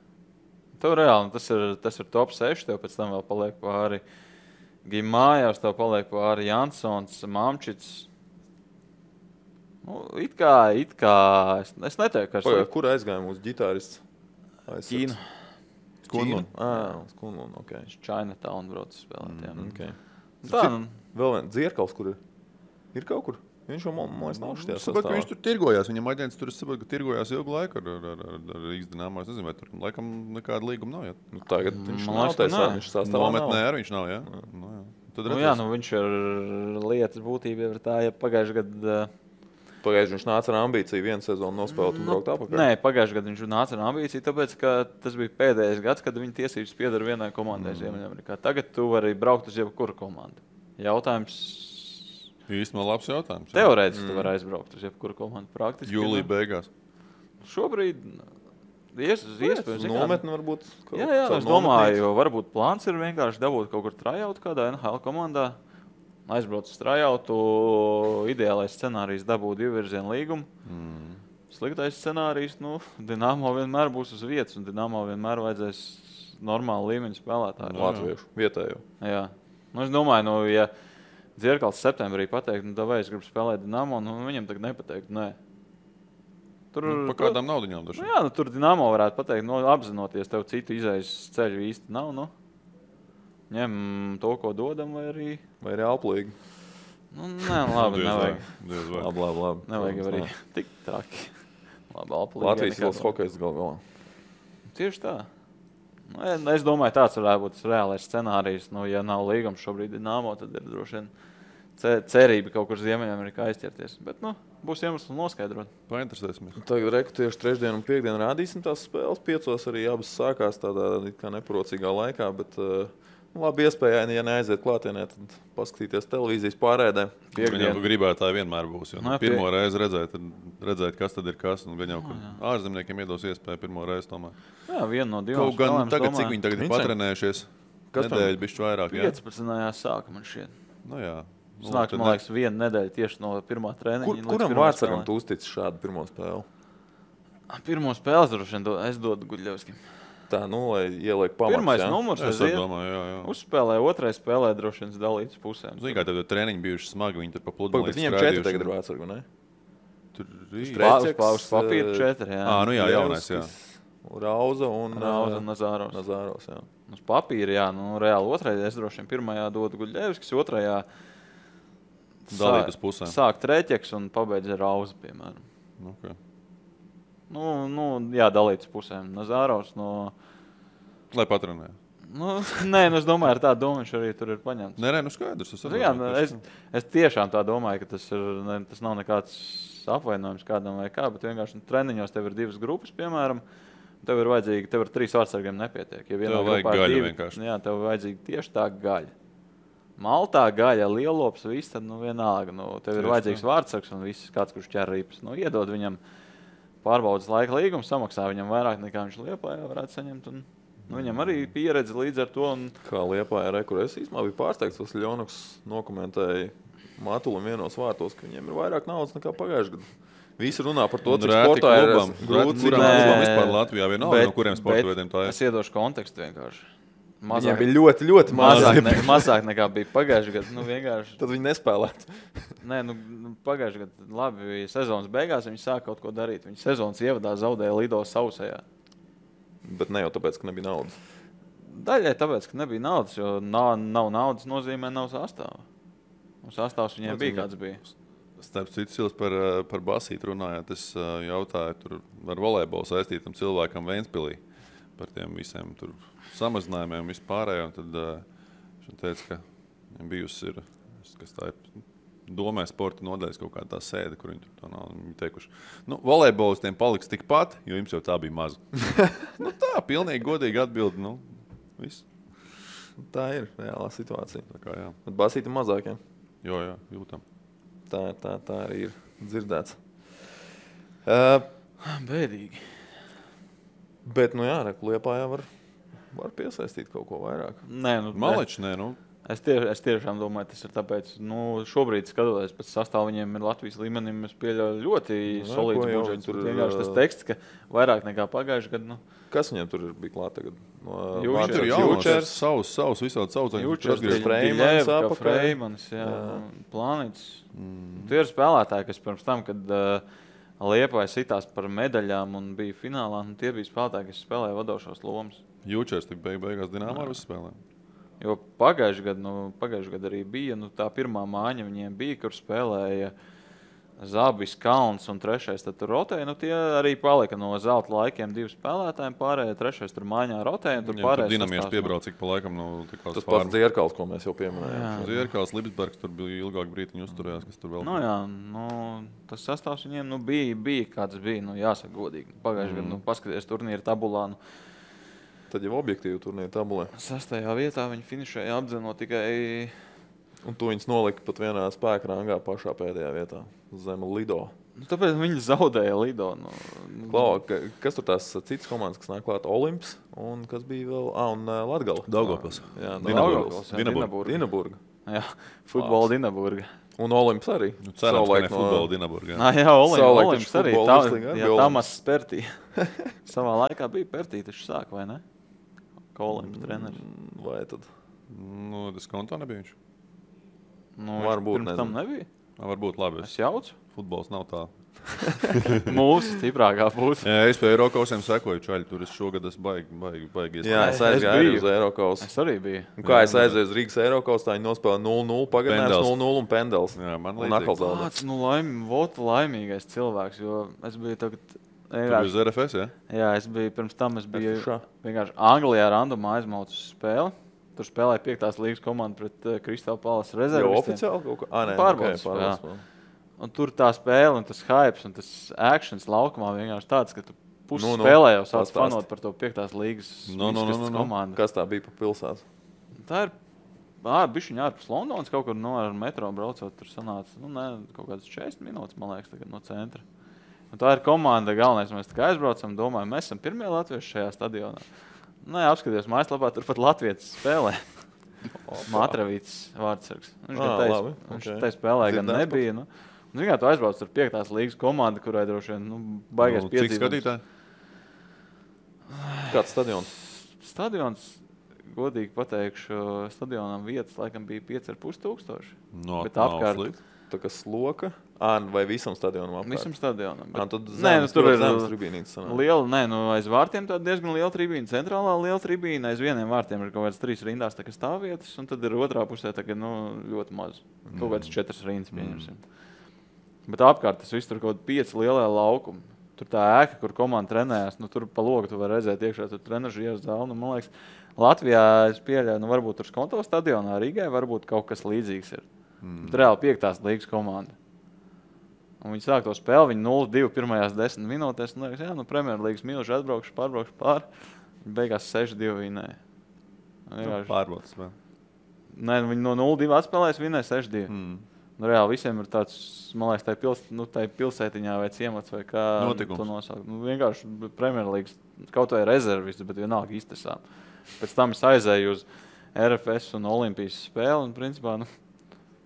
Tev reāli, tas ir top 6, tev pēc tam vēl paliek pāri Gimājās, tev paliek pāri Jansons, Mamčits. It kā, es neteiktu, ka ir. Kur aizgāja mūsu ģitārists? Ķīna. Skunlun. Skunlun, ok. Chinatown brauc spēlēt, jā. Okay. Tā, vēl viens Dzierkals, kur ir? Ir kaut kur? Viņš jau, man liekas, nav šajā sastāvā. Viņš tur tirgojās. Viņam aģents tur tirgojās ilgu laiku ar Rīgas Dinamo. Es nezinu, vai tur laikam nekāda līguma nav. Ja? Tagad viņš nav taisā. Viņš sastāvā nometnē arī viņš nav, jā? Viņš ir lietas būtība ir tā, ja pagājuši gadu... Pagājuši viņš nāca ar ambīciju vienu sezonu nospēlēt un braukt apakaļ. Nē, pagājuši gadu viņš nāca ar ambīciju, tāpēc, ka tas bija pēdējais gads, kad viņa tiesības piedara vienai komandai Ziemeļamerikā. Tagad tu vari braukt uz jebkuru komandu. Jautājums... Īstenībā labs jautājums. Teorētiski tu vari aizbraukt uz jebkuru komandu praktiski. Jūlija beigās. Šobrīd iespējams. Nometni varbūt. Jā, es domāju, jo varbūt plāns ir vienkārši dabūt kaut kur trajautu kādā NHL komandā. Aizbraukt uz trajautu, ideālais scenārijs dabūt 2-virzienu līgumu. Sliktais scenārijs, Dinamo vienmēr būs uz vietas, un Dinamo vienmēr vajadzēs normālu līmeņu spēlētāju. Latviešu, vietējo. Jā. Es domāju, ja Dzierkals septembrī pateikt, vai es gribu spēlēt Dinamo, viņam tagad nepateikt, nē. Pa kādām naudiņām dažām? Jā, tur Dinamo varētu pateikt, apzinoties, tev citu izējas ceļu īsti nav, ņem to, ko dodam, vai arī... Vai arī alplīgi. Nē, labi, nevajag. Labi. Nevajag arī tik traki. Labi, alplīgi. Latvijas valsts hokejs galvā. Tieši tā. Es domāju, tāds varētu būt reālais scenārijs. Ja nav līgums šobrīd Dinamo, tad ir droši vien cerība kaut kur Ziemeļamerikā aizķerties. Bet, būs iemesls noskaidrot. Painteresēsimies. Tagad tieši trešdien un piekdien rādīsim tās spēles. 5 arī abas sākās tādā kā neprocīgā laikā, bet labi iespēja, ja neaiziet klātienē, tad paskatīties televīzijas pārēdē. Viņa gribētāji vienmēr būs. Jo, pirmo reizi redzēt, kas tad ir kas. Un gan jau ārzemniekiem iedos iespēju pirmo reizi tomēr. Jā, viena no divām. Kaut gan tagad, cik viņi tagad ir patrenējušies, nedēļu bišķi vairāk. 15. sāka man šķiet. Nu jā. Sanāk, man liekas, viena nedēļa tieši no pirmā treniņa. Kuram Vārtsargam tu uztici šādu pirmo spēli? Pirmo spēli droši vien es dodu Guļļevskim. Tā, lai ieliek pamats. Pirmais numurs. Es domāju, jā. Uzspēlē, otrais spēlē droši vien dalītas pusēm. Zini, kā tev treniņi bijuši smagi, viņi tur pa pludmali Bet viņiem 4 tagad ir Vārtsargu, ne? Tur Uz papīra 4, jā. Nu jā, jaunais, jā. Rauza un Nazāros. Nazāros, jā. Uz papīra, jā, reāli otrais. Es droši vien pirmajā dodu Guļļevskis, otrajā dalīt uz pusēm. Sāk Treķeks un pabeidz ar Rauza, piemēram. Okay. Jā, dalīt uz pusēm. Nazāros Lai patrenē. Nē, es domāju, ar tādu domu viņš arī tur ir paņemts. Nē, skaidrs. Es tiešām tā domāju, ka tas nav nekāds apvainojums kādam vai kā, bet vienkārši treniņos tev ir 2 grupas, piemēram. Tev ir 3 vārtsargiem nepietiek. Ja tev vajag gaļa vienkārši. Jā, tev vajadzīga tieši tā gaļa. Maltā gaļa, lielops, viss, tad vienalga. Tev ir vajadzīgs vārtsargs un viss, kāds, kurš ķer ripas. Iedod viņam pārbaudas laika līgumu, samaksā viņam vairāk nekā viņš Liepājā varētu saņemt. Viņam arī pieredze līdz ar to. Kā Liepājā es īstenībā biju pārsteigts, tas Ļonuks dokumentēja Matulim vienos vārtos, ka viņiem ir vairāk naudas nekā pagājušajā gadā. Visi runā par to, cik sportā ir grūti. Vispār Latvijā vienalga, no kuriem sporta veidiem tā ir. Es iedošu kontekstu vienkārši. Viņiem bija ļoti, ļoti mazāk nekā bija pagājušajā gadā. Tad viņi nespēlētu. Nē, pagājušajā gadā labi sezonas beigās viņi sāka kaut ko darīt. Viņi sezonas ievadā zaudēja Lido sausajā. Bet ne jau tāpēc, ka nebija naudas. Daļai tāpēc, ka nebija naudas, jo nav naudas nozīmē nav sastāva. Sastāvs viņiem bija kāds bija. Starp citu, Sils par basītu runājot, es jautāju tur ar volejbolu saistītam cilvēkam Ventspilī par tiem visiem tur samazinājumiem un vispārējo. Tad viņš teica, ka viņam bijusi ir, kas tā ir, domē sporta nodaļas kaut kāda tā sēde, kur viņi tur nav. Viņi teikuši, volejbolistiem paliks tikpat, jo jums jau tā bija maza. Tā, pilnīgi godīgi atbildi, viss. Tā ir reālā situācija. Tā kā, jā. Bet basīti mazāk, jā? Jo, jā, jūtam. Tā arī ir dzirdēts. Bēdīgi. Bet, Liepājā var piesaistīt kaut ko vairāk. Nē, Maleči, nē, Es tiešām domāju, tas ir tāpēc, šobrīd skatoties pēc sastāvu, viņiem ir Latvijas līmenim, es pieļauju ļoti solīds budžets. Tur vienkārši tas teksts, ka vairāk nekā pagājuši gadu. Kas viņiem tur bija klāt tagad? Jūčers, savs visādi saucaņi. Jūčers, Freimans, Plānīts. Tie ir spēlētāji, kas pirms tam, kad Liepāja sitās par medaļām un bija finālā, tie bija spēlētāji, kas spēlēja vadošos lomas. Jūčers tik beigās Dinamo ar visu spēlēm. Jo pagājušajā gadā arī bija tā pirmā māņa, viņiem bija, kur spēlēja Zabis, Kalns un trešais tur rotēja. Tie arī palika no zelta laikiem 2 spēlētājiem, pārējie trešais tur māņā rotēja. Tur Dinamijas piebrauc, cik pa laikam tas pats Dzierkals, ko mēs jau pieminējām. Dzierkals, Lipsbergs tur bija ilgāk brītiņu uzturējās, kas tur vēl. Tas sastāvs viņiem bija kāds bija, jāsaka godīgi. Pagājušajā gadā, paskaties turnīra tabulā. Tad jau objektīvi turnīra tabulē. 6. vietā viņi finišēja apdzenot tikai... Un tu viņus nolika pat vienā spēka rangā pašā pēdējā vietā, zem Lido. Tāpēc viņi zaudēja Lido. Kas tur tās citas komandas, kas nāk klāt? Olimps un kas bija vēl? Un Latgala. Daugavpils. Jā, Dinaburga. Jā, futbola Dinaburga. Un Olimps arī. Cerams, ka ne futbola Dinaburga. Jā, Olimps arī. Tamas Pertī. Savā laikā bija Pertī, taču sāk, vai ne? Kā Olimps treneris. Vai tad? Tas kontā nebija viņš. Varbūt pirms tam nebija. Varbūt labi. Es jaucu. Futbols nav tā. Mūsu stiprākā puse. Jā, es pie Eirokausiem sekoju čaļi. Tur es šogad baigi iespēju. Jā, es aizgāju uz Eirokausu. Es arī biju. Un kā es aizgāju uz Rīgas Eirokausu, tā viņi nospēlē 0-0, pagadinājums 0-0 un Pendels. Jā, man līdzīgi. Kāds laimīgais cilvēks, jo es biju tagad... Tu biji uz RFS, jā? Jā, pirms tam es biju vienkārši Anglijā randumā aizmaucu spēli. Tur spēlēja 5. līgas komanda pret Crystal Palace Jau rezervistiem. oficiāli kaut kā? Nē, Pārbaudas okay, Un tur tā spēle un tas hypes un tas actions laukumā vienkārši tāds, ka tu pusi Nu, spēlē jau sāc pastāst. fanot par to 5. līgas komandu. Kas tā bija pa pilsētu? Tā ir bišķiņa ārpus Londonas, kaut kur ar metro braucot, tur sanāca, kaut kādas 40 minūtes, man liekas, tagad no centra. Un tā ir komanda, galvenais, mēs tā kā aizbraucam, domājam, mēs esam pirmie latvieši šajā stadionā. Apskatījos mājaslapā, tur pat latvietis spēlē. Matravīts vārdsargs. Viņš tai spēlē gan nebija. Ziniet, tu aizbrauc ar 5. līgas komandu, kurai droši vien baigās Cik piedzīvojums. skatītāji? Kāds stadions? Stadions, godīgi pateikšu, stadionam vietas laikam bija 5,5 No, bet apkārt Tā kā sloka? Vai visam stadionam apkārt? visam stadionam. Tad tur ir zemes tribīnītes sanāk. liela, aiz vārtiem tāda diezgan liela tribīna, centrālā liela tribīna, aiz vieniem vārtiem ir kaut kādas 3 rindās tā kā stāvvietas, un tad ir otrā pusē tā kā, ļoti maz. Kaut kādas 4 rindas pieņemsim. Bet apkārt tas viss tur kaut kādi 5 lielie laukumi. Tur tā ēka, kur komanda trenējās, tur pa logu tu vari redzēt iekšā, tur trenažieru zāli. Man liekas, Latvijā es pieļauju, varbūt tur Skonto stadionā Rīgai varbūt kaut kas līdzīgs ir. Tur reāli 5. līgas komanda. Un viņi sāk to spēli, viņi 0-2 pirmajās 10 minūtēs. Un liekas, Premjerlīgas milži atbraukšu pār. Viņi beigās 6-2 vinēja. Pārbaudas. Nē, viņi no 0-2 atspēlēs, vinēja 6-2. Reāli visiem ir tāds, man liekas, tai pilsētiņā vai ciemats vai kā Notikums. to nosaukt. Vienkārši Premjerlīgas, kaut vai rezervisti, bet vienalga iztasām. Pēc tam es aizēju uz RFS un Olimpijas spēli un principā,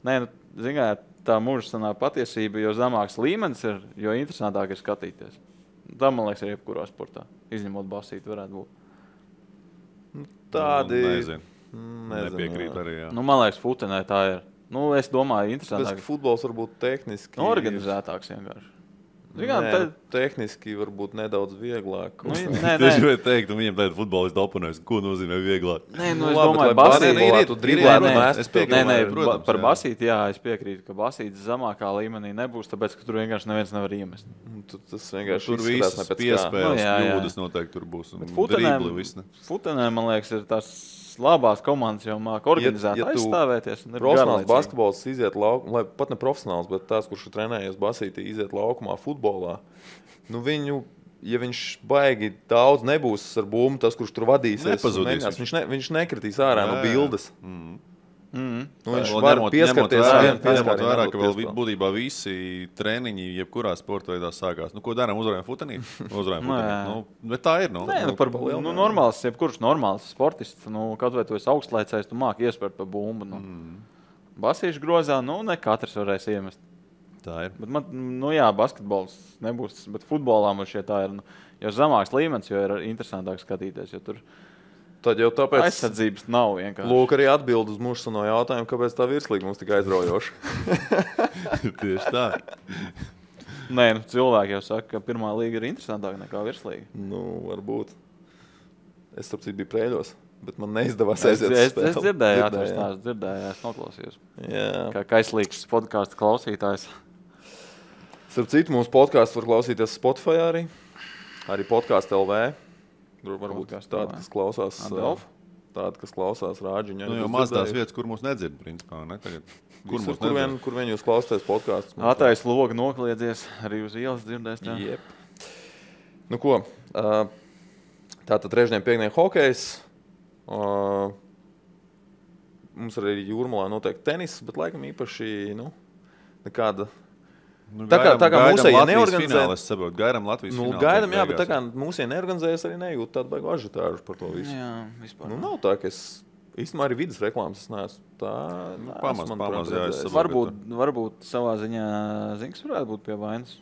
ziniet, tā mūžsanā patiesība, jo zemāks līmenis ir, jo interesantāk ir skatīties. Tā, man liekas, ir jebkurā sportā. Izņemot basīti varētu būt. Tādi... Nezinu. Nepiekrīt arī, jā. Man liekas, futenē tā ir. Es domāju, interesantāk. Futbols varbūt tehniski... Organizētāks vienkārši. Tehniski varbūt nedaudz vieglāk. Es gribēju teikt, un viņiem tagad futbolisti oponēs, ko nozīmē vieglāk. Es domāju, basīti. Par basīti, jā, es piekrītu, ka basītis zemākā līmenī nebūs, tāpēc, ka tur vienkārši neviens nevar iemest. Tas vienkārši Tur visas piespēles, kļūdas noteikti tur būs. Futenē, man liekas, ir tās labās komandas jau māk organizēt, aizstāvēties. Profesionāls basketbols iziet laukumā, pat ne profesionāls, bet tās, kurš ir trenējies basītī, iziet laukumā futbolā. Ja viņš baigi daudz nebūs ar bumbu, tas, kurš tur vadīsies, viņš nekritīs ārā no bildes. Viņš var pieskarties ņemot vērā, ka vēl būtībā visi treniņi jebkurā sporta veidā sākās. Ko darām? Uzvarējam futenīt? Uzvarējam futenīt. Bet tā ir. Normāls, jebkurš normāls sportists, kaut vai tu esi augstlaicējs, tu māki iespērt pa bumbu. Basīšu grozā, ne katrs varēs iemest. Tā ir. Bet basketbols nebūs, bet futbolā man šie tā ir. Jo zemāks līmenis, jo ir interesantāk skatīties, jo tur tad jau tāpēc aizsardzības nav vienkārši. Lūk, arī atbild uz mūžsano jautājumu, kāpēc tā virslīga mums tik aizraujoša. Tieši tā. Cilvēki jau saka, ka pirmā līga ir interesantāka nekā virslīga. Varbūt. Es starp citu biju Prēļos, bet man neizdevās aiziet uz spēli. Es dzirdēju, es noklausījos. Kā kaislīgs podcastu klausītājs. Starp citu, mūsu podcastu var klausīties Spotify arī Podcast LV. Tur varbūt tādi, kas klausās rāģiņu. Jau maz tās vietas, kur mūs nedzird, principā, ne? Tagad, kur vien jūs klausāties podkāstus. Atais logu nokliedzies, arī uz ielas dzirdēs. Jep. Ko? Tātad trešdien, piekdien hokejs. Mums arī Jūrmalā noteikti tenis, bet laikam īpaši, nekāda... Tā kā mūsēji neorganizējas, gaidām Latvijas finālu. Gaidām, jā, bet tā kā mūsēji neorganizējas, arī nejūt tādu baigu ažitāžu par to visu. Jā, vispār. Nav tā, ka es īstenībā arī vidas reklāmas es neesmu tā. Pamaz, jā, es saprotu. Varbūt savā ziņā Zinks varētu būt pie vainas.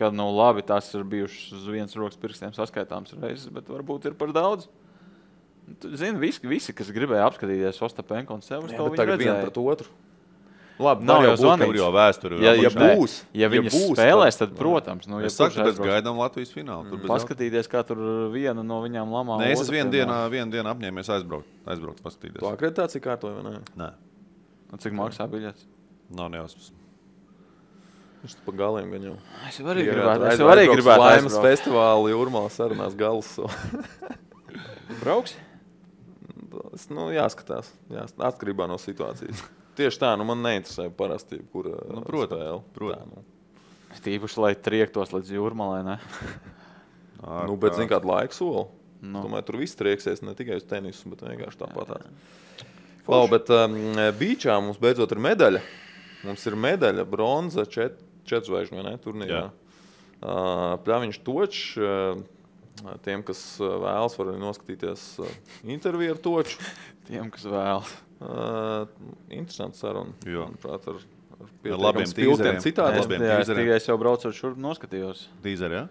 Kad labi, tās ir bijušas uz vienas rokas pirkstiem saskaitāms reizes, bet varbūt ir par daudz. Zini, visi, kas gribēja apskatīties Ostapenko un Severs, to viņi redzēja. Vienu pret otru. Labi, nav jau zvanīts. Jau vēsturi. Ja viņi spēlēs, tad, protams. Es saku, ka gaidām Latvijas finālu. Paskatīties, kā tur viena no viņām lamā. Nē, es vienu dienu apņēmies aizbraukt paskatīties. Tu akreditāciju kārtoji vai ne? Nē. Cik maksā biļets? Nav nejausmas. Viņš pa galiem gan jau. Es arī gribētu Laimas festivāli Jūrmalā sarunās galus. Brauks? Tas jāskatās. Atkarībā no situācijas. Tieši tā, man neinteresē parasti, kur spēle. Tīpaši, lai triektos līdz jūrmalai, ne? Bet zini, kādu laiku soli. Domāju, tur viss trieksies ne tikai uz tenisu, bet vienkārši tāpatās. Bet bīčā mums beidzot ir medaļa. Mums ir medaļa, bronza, 4 zvaigžņu turnīrā. Pļaviņš Točs, tiem, kas vēlas, var arī noskatīties interviju ar Toču. Tiem, kas vēlas. Interesants saruna. Manuprāt, ar labiem spiltiem citādi. Es tikai jau braucot šurp noskatījos. Tīzeri,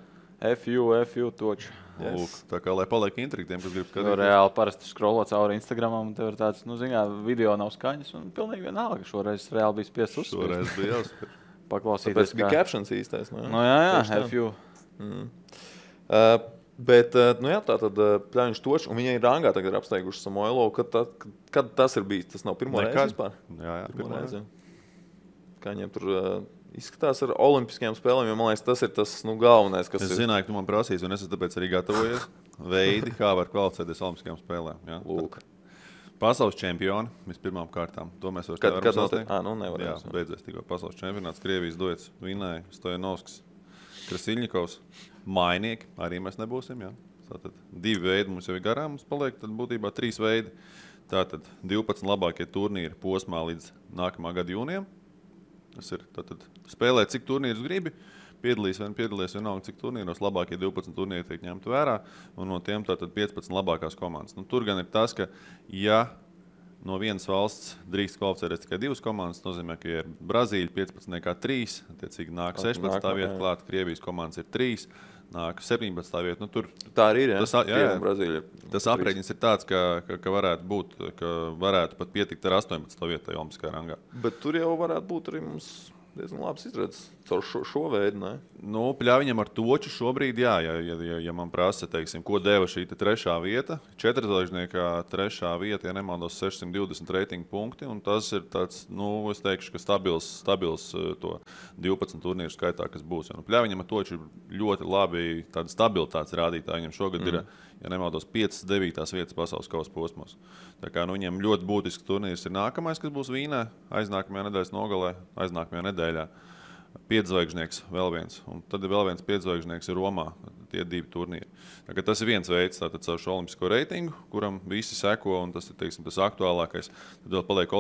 FU Točs. Lūk, tā kā lai paliek intriga tiem, kas grib skatīties. Reāli parasti scrollo cauri Instagramam, un tev ir tāds, video nav skaņas, un pilnīgi vienalga. Šoreiz reāli bija spiests uzspēst. Šoreiz bija jāspēr. Paklausīties. Tāpēc bija captions īstais, ne? Jā, FU. Bet, tā tad Pļaviņš Točs, un viņi ir rangā tagad ir apsteiguši Samoilovu. Kad tas ir bijis? Tas nav pirmo reizi vispār? Jā, pirmo reizi. Kā viņiem tur izskatās ar olimpiskajām spēlēm, jo man liekas, tas ir tas galvenais, kas ir. Es zināju, ka tu man prasīs, un es tāpēc arī gatavojies veidi, kā var kvalificēties olimpiskajām spēlēm. Jā. Lūk. Pasaules čempioni vispirmām kārtām. To mēs vairs nevaram sasniegt. Nevaram. Jā, beidzies tikko pasaules čempionāts. Krievijas duets vinēja Stojanovskis, Krasiļņikovs. Mainieki arī mēs nebūsim. Jā. Tātad 2 veidi mums jau ir garām, mums paliek tad būtībā 3 veidi. Tātad 12 labākie turnīri posmā līdz nākamā gada jūnijam. Tas ir tātad spēlēt, cik turnīrus gribi, piedalīs vienalga, cik turnīros labākie 12 turnīri tiek ņemti vērā, un no tiem tātad 15 labākās komandas. Tur gan ir tas, ka ja no vienas valsts drīkst kvalificēties tikai 2 komandas, nozīmē, ka ir Brazīļa 15 kā 3, attiecīgi nāk 16. vieta klāt, Krievijas komandas ir 3, nāk 17. vieta. Tur tā arī ir, Brazīļa. Tas aprēķins ir tāds, ka varētu būt, ka varētu pat pietikt ar 18. vietai olimpiskajā rangā. Bet tur jau varētu būt arī mums diezgan labs izredzes caur šo veidu, ne? Pļaviņam ar Toču šobrīd, jā, ja man prasa, teiksim, ko deva šī 3. vieta, 4-zvaigžniekā 3. vieta, ja nemaldos 620 reitingu punkti, un tas ir tāds, es teikšu, ka stabils to 12 turnīru skaitā, kas būs. Pļaviņam ar Toču ir ļoti labi tāda stabilitātes rādītāja. Viņam šogad ir, ja nemaldos, 5-9 vietas pasaules kausa posmos. Tā kā viņam ļoti būtisks turnīrs ir nākamais, kas būs Vīnē, aiznākamajā nedēļas nogalē, aiznākamajā nedēļā. 5-zvaigžnieks vēl viens, un tad vēl viens 5-zvaigžnieks ir Romā, tie 2 turnīri. Tas ir viens veids, tātad caur šo olimpisko reitingu, kuram visi seko, un tas ir, teiksim, tas aktuālākais. Tad vēl paliek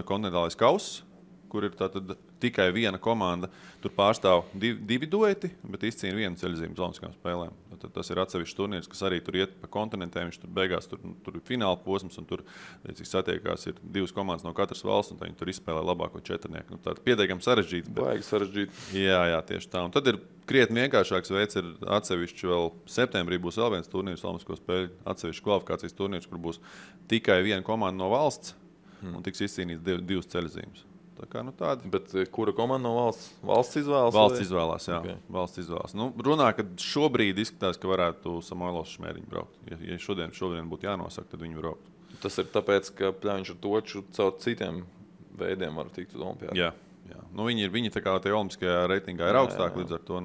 kontinentālais kauss, kur ir tātad tikai viena komanda. Tur pārstāv 2 dueti, bet izcīna 1 ceļzīmu uz olimpiskajām spēlēm. Tad tas ir atsevišķs turnīrs, kas arī tur iet pa kontinentiem. Viņš tur beigās tur ir fināla posms, un tur satiekās ir 2 komandas no katras valsts, un viņi tur izspēlē labāko 4-nieku. Tātad pietiekami sarežģīti. Baigi sarežģīti. Jā, tieši tā. Un tad ir krietni vienkāršāks veids, ir atsevišķi vēl septembrī būs vēl viens turnīrs, olimpisko spēļu atsevišķi kvalifikācijas turnīrs, kur būs tikai viena komanda no valsts, un tiks izcīnīts 2 ceļzīmes. Tādi. Bet kura komanda no valsts? Valsts izvēlas? Valsts izvēlās, jā. Okay. Valsts izvēlās. Runā, ka šobrīd izskatās, ka varētu Samoilovs Šmēriņu braukt. Ja šodien būtu jānosaka, tad viņi braukt. Tas ir tāpēc, ka Pļaviņš ar Toču caur citiem veidiem var tikt uz olimpiādu. Jā. Viņi tā kā tie olimpiskajā reitingā ir augstāki, līdz ar to,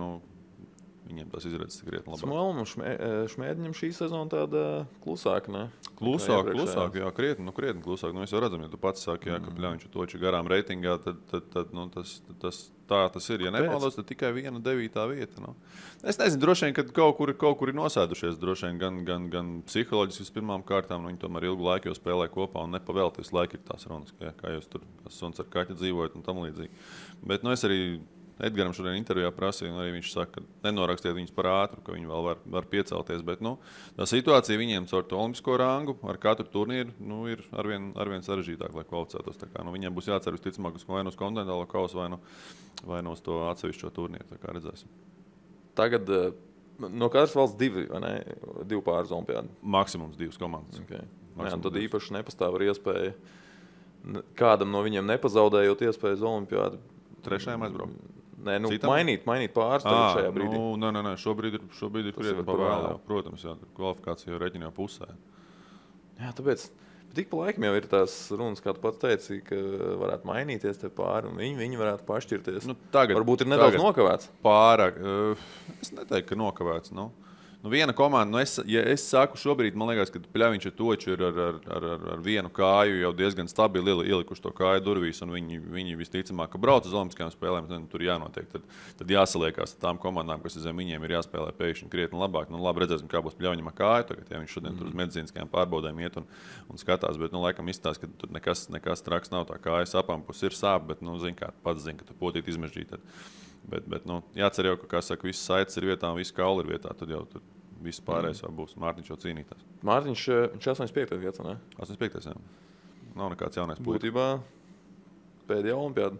viņiem tas izredzes krietni labāk. Samoilovam un Šmēriņam šī sezona tāda klusāka, ne? Klusāk, jā, krietni klusāk. Es jau redzam, ja tu pats saki, ka Pļaviņš ar Toču garām reitingā, tad tas ir. Ja nemaldos, tad tikai 1 9. vieta. Es nezinu, droši vien, ka kaut kur ir nosēdušies. Droši vien gan psiholoģiski vispirmām kārtām, viņi tomēr ilgu laiku jau spēlē kopā un nepavēlti visu laiku ir tās runas, kā jūs tur suns ar kaķi dzīvojat un tam līdzīgi. Bet es arī Edgaram šodien intervijā prasīja, un arī viņš saka, ka nenorakstiet viņus par ātru, ka viņi vēl var piecelties. Bet tā situācija viņiem caur to olimpisko rangu ar katru turnīru ir arvien sarežģītāk, lai kvalificētos. Viņiem būs jācer visticamāk vai uz kontinentālo kausu, vai uz to atsevišķo turnīru. Tā kā redzēsim. Tagad no katras valsts 2 pāris olimpiādi? Maksimums 2 komandas. Okay. Tad īpaši nepastāv ar iespēju kādam no viņiem nepazaudējot iespēju uz olimpiādu. Trešajam aizbraukt. Nē, mainīt pāris šajā brīdī. Nē, šobrīd ir krietni pavēlē. Protams, jā, kvalifikācija jau reķina jau pusē. Jā, tāpēc tik pa laikam jau ir tās runas, kā tu pats teici, ka varētu mainīties te pāri, un viņi varētu pašķirties. Varbūt ir nedaudz nokavēts. Pārāk. Es neteiktu, ka nokavēts. viena komanda, es saku šobrīd, man liekas, ka Pļaviņš ar Toču ir ar vienu kāju jau diezgan stabili ielikuši to kāju durvīs, un viņi visticamāk, ka brauc uz Olimpiskajām spēlēm, tad tur jānotiek. Tad jāsaliekās tām komandām, kas zem viņiem ir jāspēlē pēkšņi krietni labāk. Labi, redzēsim, kā būs Pļaviņam ar kāju tagad, ja viņš šodien tur uz medicīniskajām pārbaudēm iet un skatās, bet, laikam izstāst, ka tur nekas traks nav, tā kājas apampus ir sāp, bet, zin kā, pats zin, ka tu potīt izmežģīt. Bet jācer jau, ka, kā saka, viss saites ir vietā un viss kauli ir vietā, tad jau viss pārējais jau būs. Mārtiņš jau cīnītās. Mārtiņš 85. gads, ne? 85. jā. Nav nekāds jaunais puisis. Būtībā pēdējā olimpiāda.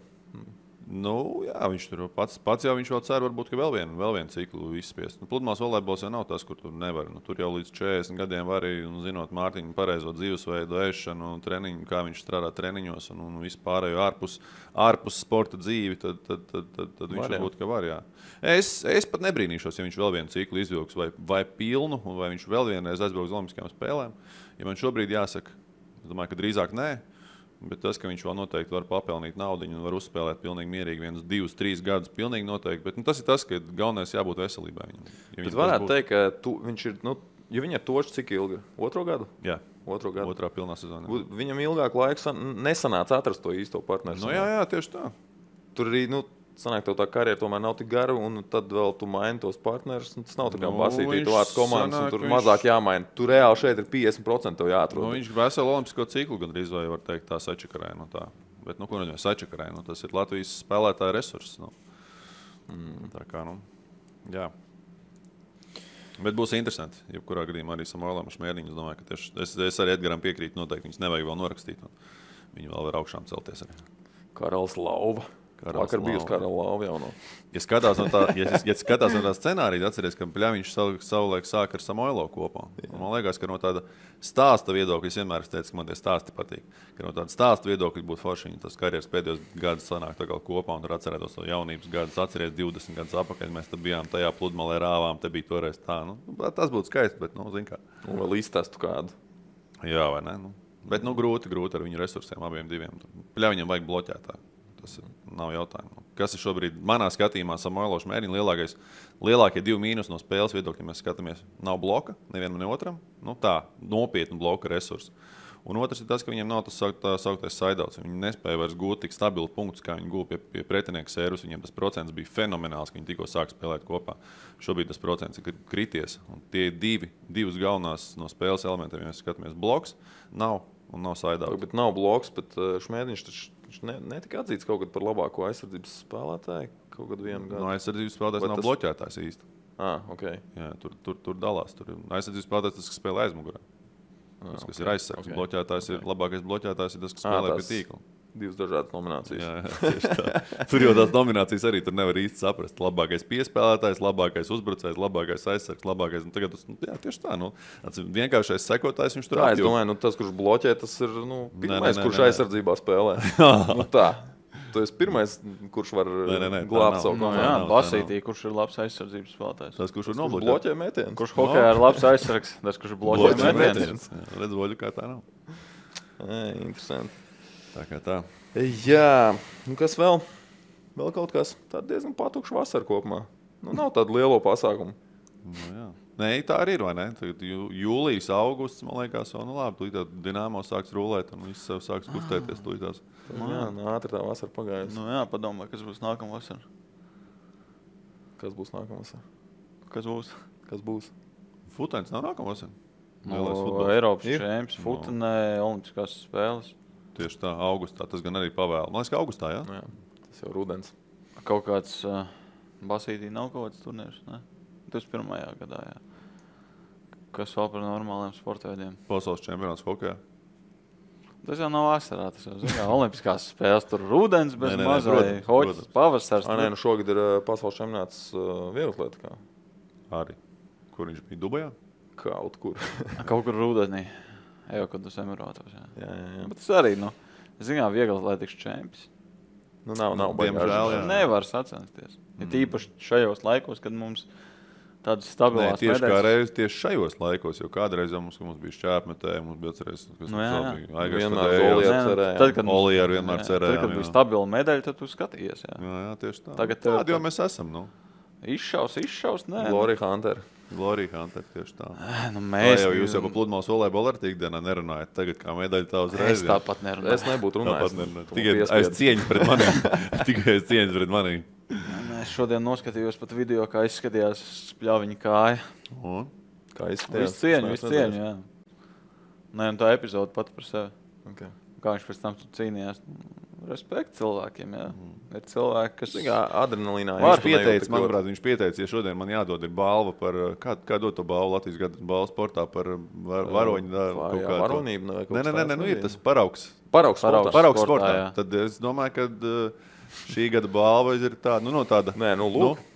Jā, viņš tur pats jau viņš vēl cer, varbūt, ka vēl vienu ciklu izspiest. Pludmales volejbols jau nav tas, kur tu nevari. Tur jau līdz 40 gadiem var arī, zinot Mārtiņu pareizo dzīvesveidu, ēšanu, treniņu, kā viņš strādā treniņos un vispārējo ārpus sporta dzīvi, tad viņš varbūt, ka var, jā. Es pat nebrīnīšos, ja viņš vēl vienu ciklu izvilks vai pilnu, vai viņš vēl vienreiz aizbrauks uz Olimpiskajām spēlēm. Ja man šobrīd jāsaka, es domāju, ka drīzāk nē. Bet tas, ka viņš vēl noteikti var papelnīt naudu un var uzspēlēt pilnīgi mierīgi 1, 2, 3 gadus, pilnīgi noteikti. Bet tas ir tas, ka galvenais jābūt veselībai viņam. Ja bet varētu teikt, ka viņš ir, ja viņa ir Točs cik ilgi? 2. gadu? Jā. 2. gadu. 2. pilnā sezonā. Viņam ilgāk laiku nesanāca atrast to īsto partneru. Jā, tieši tā. Tur arī, sanāk, tev tā karjera tomēr nav tik gara, un tad vēl tu maini tos partnerus. Tas nav tā kā basītī, tu vārds komandas, un tur mazāk jāmaina. Tu reāli šeit ir 50% tev jāatrod. Viņš veselu olimpisko ciklu gandrīz vai var teikt tā sačakarēja. Tā. Bet, ko neņem sačakarēja? Tas ir Latvijas spēlētāja resurss. Tā kā, jā. Bet būs interesanti. Jebkurā gadījumā arī Samuēlam Šmērniņam. Es domāju, ka tieši es arī Edgaram piekrītu noteikti. Viņus nevajag vēl norakstīt. Viņi vēl var augšām celties arī. Karalis Lauva. Vakar bijusi Karala Lauva jau no. Ja skatās no tā scenārija, atceries, ka Pļaviņš savulaik sāka ar Samuēlo kopā. Man liekas, ka no tāda stāsta viedokļa, es vienmēr teicu, ka man tie stāsti patīk, ka no tāda stāsta viedokļa būtu forši, viņi tas karjeras pēdējos gadus sanāk tā kā kopā un tur atcerētos to jaunības gadus, atceries 20 gadus apakaļ, mēs te bijām tajā pludmalē rāvām, te bija toreiz tā. Tas būtu skaisti, bet, zin kā. Un vēl izstāstu kādu. Jā, vai ne? Bet, grūti ar viņu resursiem abiem diviem. Pļaviņam vajag bloķētā. Tas nav jautājumu. Kas ir šobrīd manā skatījumā Samuēlo Šmērniņa lielākie 2 mīnus no spēles viedokļa, mēs skatāmies, nav bloka, nevienam ne otram. Tā, nopietnu bloka resursu. Un otrs ir tas, ka viņiem nav tas sauktais saidauts. Viņi nespēja vairs gūt tik stabilu punktus, kā viņi gūja pie pretinieka sērvus. Viņiem tas procents bija fenomenāls, ka viņi tikko sāk spēlēt kopā. Šobrīd tas procents ir krities. Un tie divas galvenās no spēles elementiem, ja mēs skatāmies, bloks nav un nav saidauts. Bet nav bloks, bet Šmērniņš taču netika atzīts kaut kad par labāko aizsardzības spēlētāju kaut kad vienu gadu. No aizsardzības spēlētājs nav bloķētājs īsti. Okay. Jā, tur dalās. Tur aizsardzības spēlētājs tas, kas spēlē aizmugurē. Tas, kas ir aizsargs. Okay. Bloķētājs ir labākais bloķētājs, ir tas, kas spēlē pie tīkla. 2 dažādas nominācijas. Jā, tieši tā. Tur jau tās nominācijas arī tur nevar īsti saprast. Labākais piespēlētājs, labākais uzbrucējs, labākais aizsargs, labākais. Tagad jā, tieši tā. Vienkāršais sekotājs viņš tur apjūt. Es domāju, tas, kurš bloķē, tas ir pirmais, kurš aizsardzībā spēlē. Tā. Tu esi pirmais, kurš var glābt savu komandu. Jā, Basītī, kurš ir labs aizsardzības spēlētājs. Tas, kurš var bloķē mētienus. Kurš hokejā ir labs aizsargs, tas, kurš bloķē mētienus. Redz voļu, kā tā nav. Interesanti. Tā kā tā. Jā, kas vēl? Vēl kaut kas tāds diezgan patukšs vasara kopumā. Nav tādu lielo pasākumu. Jā. Nē, tā arī ir, vai ne? Tagad jūlijas, augusts, man liekas, labi, tūlīt Dinamo sāks rulēt un viss sev sāks kustēties tūlītās. Jā, ātri tā vasara pagājusi. Jā, padomā, kas būs nākamā vasara. Kas būs nākamā vasara? Kas būs? Futens nav nākamā vasara. Eiropas čempions, futenē, olimpiskās spēles. Tieši tā, augustā. Tas gan arī pavēl. Man liekas, ka augustā, jā? Jā, tas jau rudens. Kaut kāds Basītī nav kaut kāds turnīrs, ne? 21. gadā, jā. Kas vēl par normāliem sportveidiem? Pasaules čempionāts hokejā. Tas jau nav vasarā, tas jau zina. Olimpiskās spēles tur rudens, bez mazai hoķis, pavasars. Šogad ir pasaules čempionāts vieglatlētikā. Arī. Kur viņš bija? Dubajā? Kaut kur. Kaut kur rudenī. Jau, kad uz Emirātos, jā. Bet tas arī, zinām, vieglatlētikas čempions. Nav diemžēl, jā. Nevar sacensties. Ja tīpaši šajos laikos, kad mums tādas stabilās medaļas. Tieši kā reiz tieši šajos laikos, jo kādreiz mums bija šķēpmetēji, mums bija atcerējies, kas Olija vienmēr cerēja. Tad, kad bija stabila medaļa, tad tu skatījies, jā. Jā, tieši tā. Tādi jau mēs esam, Izšaus, nē. Glory Hunter. Glory Hunter tieši tā. Nu, Jūs jau pa pludmales volejbolu ar tīkdienā nerunājat. Tagad kā medaļa tā uzreiz. Es tāpat nerunāju. Es nebūtu runājis. Tikai aiz cieņas pret maniem. Tikai aiz cieņas pret maniem. Es šodien noskatījos pat video, kā izskatījās spļaviņa kāja. Kā izskatījās? Visu cieņu, jā. Nē, un tā epizode pat par sevi. Okay. Kā viņš pēc tam cīnījās. Respekt cilvēkiem, jā. Ir cilvēki, kas... Adrenalīnā. Viņš pieteica, ja šodien man jādod ir balva par... Kā dod to balvu Latvijas gada balvu sportā par varoņu? Varonību? Nē, ir tas paraugs. Paraugs sportā. Tad es domāju, ka šī gada balva ir tāda, tāda... Nē,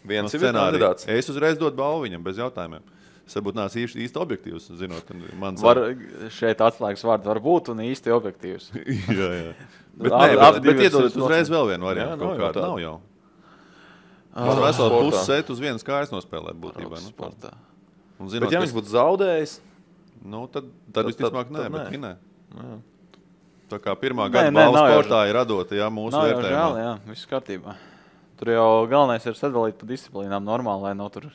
viens ir kandidāts. Es uzreiz dodu balvu viņam bez jautājumiem. Es varbūt nāc īsti objektīvs, zinot. Šeit atslēgas vārdi var būt un īsti objektīvs. Jā. Bet iedodat uzreiz vēl vienu variantu. Nav jau. Man veselu pusi set uz vienas kājas nospēlēt būtībā. Bet ja viņš būtu zaudējis? Tad visticamāk nē, bet vinē. Tā kā pirmā gada balva sportā ir radota, mūsu vērtējumā. Nav jau žēl, viss kārtībā. Tur jau galvenais ir sadalīt pa disciplīnām normāli, lai nav tur,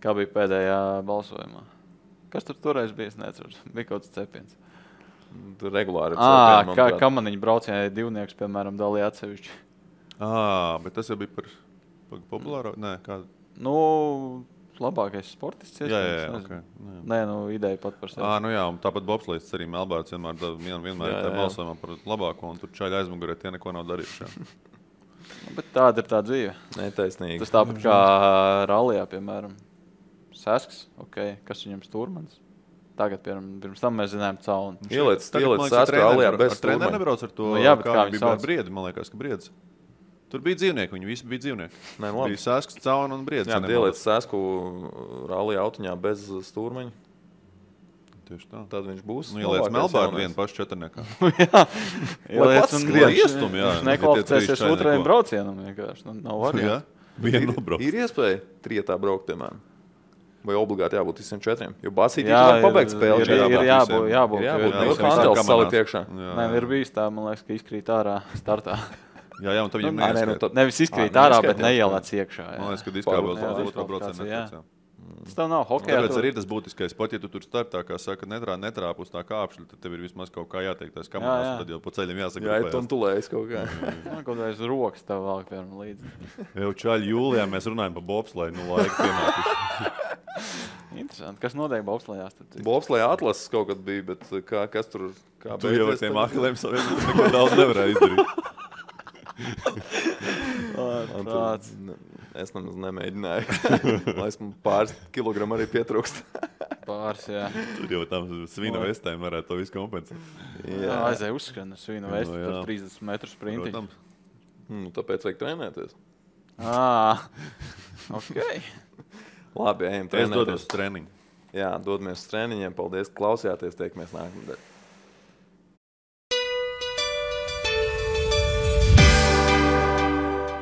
kā bija pēdējā balsojumā. Kas tur toreiz bija, es neceru. Bija kaut kāds cepiens. Tur regulāri Kamaniņu braucienai divnieks, piemēram, dalīja atsevišķi. Bet tas jau bija par populāro? Nē, kādu? Labākais sportists. Jā. Nē, ideja pat par sevi. Un tāpat bobslēdis arī Melbārds vienmēr ir tā balsojumā par labāko, un tur čaļi aizmugurē tie neko nav darījuši. Bet tāda ir tā dzīve. Netaisnīgi. Tas tāpat kā rallijā, piemēram. Sesks, kas viņam stūrmanis. Tagad, pirms tam mēs zinājām caunu. Ieliec Sesku rallijā bez stūrmaņa. Treneris nebrauc ar to, kā bija ar Briedi, man liekas, ka Briedis. Tur bija dzīvnieki, viņi visi bija dzīvnieki. Bija Sesks, cauna un Briedis. Jā, ieliec Sesku rallijā autiņā bez stūrmaņa. Tieši tā. Tad viņš būs. Ieliec Melbārdu vienu pašu četrniekā. Ieliec un iestum, jā. Viņš nekvalificēsies otrajam braucienam vienkārši. Nav variantu. Ir iespēja trietā braukt, piemēram. Vai obligāti jābūt visiem četriem? Jo Basītī var pabeigt spēli. Ir jābūt. Kantels salikt iekšā. Nē, ir bijis tā, man liekas, ka izkrīt ārā startā. Jā, un tad viņam neizkrīt. Nevis izkrīt ārā, bet neielēc iekšā. Man liekas, ka diskvalifikācija. Tas tev nav hokejā. Tāpēc arī tas būtiskais. Pat ja tu tur startā, kā saka, netrāp uz tā kāpšļa, tad tev ir vismaz kaut kā jāteikt tās kamerās, un tad jau pa ceļam jāsaka. Jā, tu un tulējas kaut kā. Kaut kā rokas tev vēl, piemēram, līdzi. Jau čaļi jūlijā mēs runājam par bobsleju, laika pienākuši. Interesanti. Kas notiek bobslejās? Bobslejā atlases kaut kad bija, bet kas tur kā tu jau ar tiem akliem saviem neko daudz nevarēja izdarīt. Es nemaz nemēģināju. Lai esmu pāris kilogramu arī pietrūkst. Pāris, jā. Tur jau tam svina vestēm varētu to visu kompensēt. Jā, aizēja uzskrien svina vesti par 30 metru sprintiņu. Tāpēc vajag trenēties. Ok. Labi, ejam trenēties. Es dodos uz treniņu. Jā, dodamies uz treniņiem. Paldies, ka klausījāties. Tiekamies nākamnedēļ.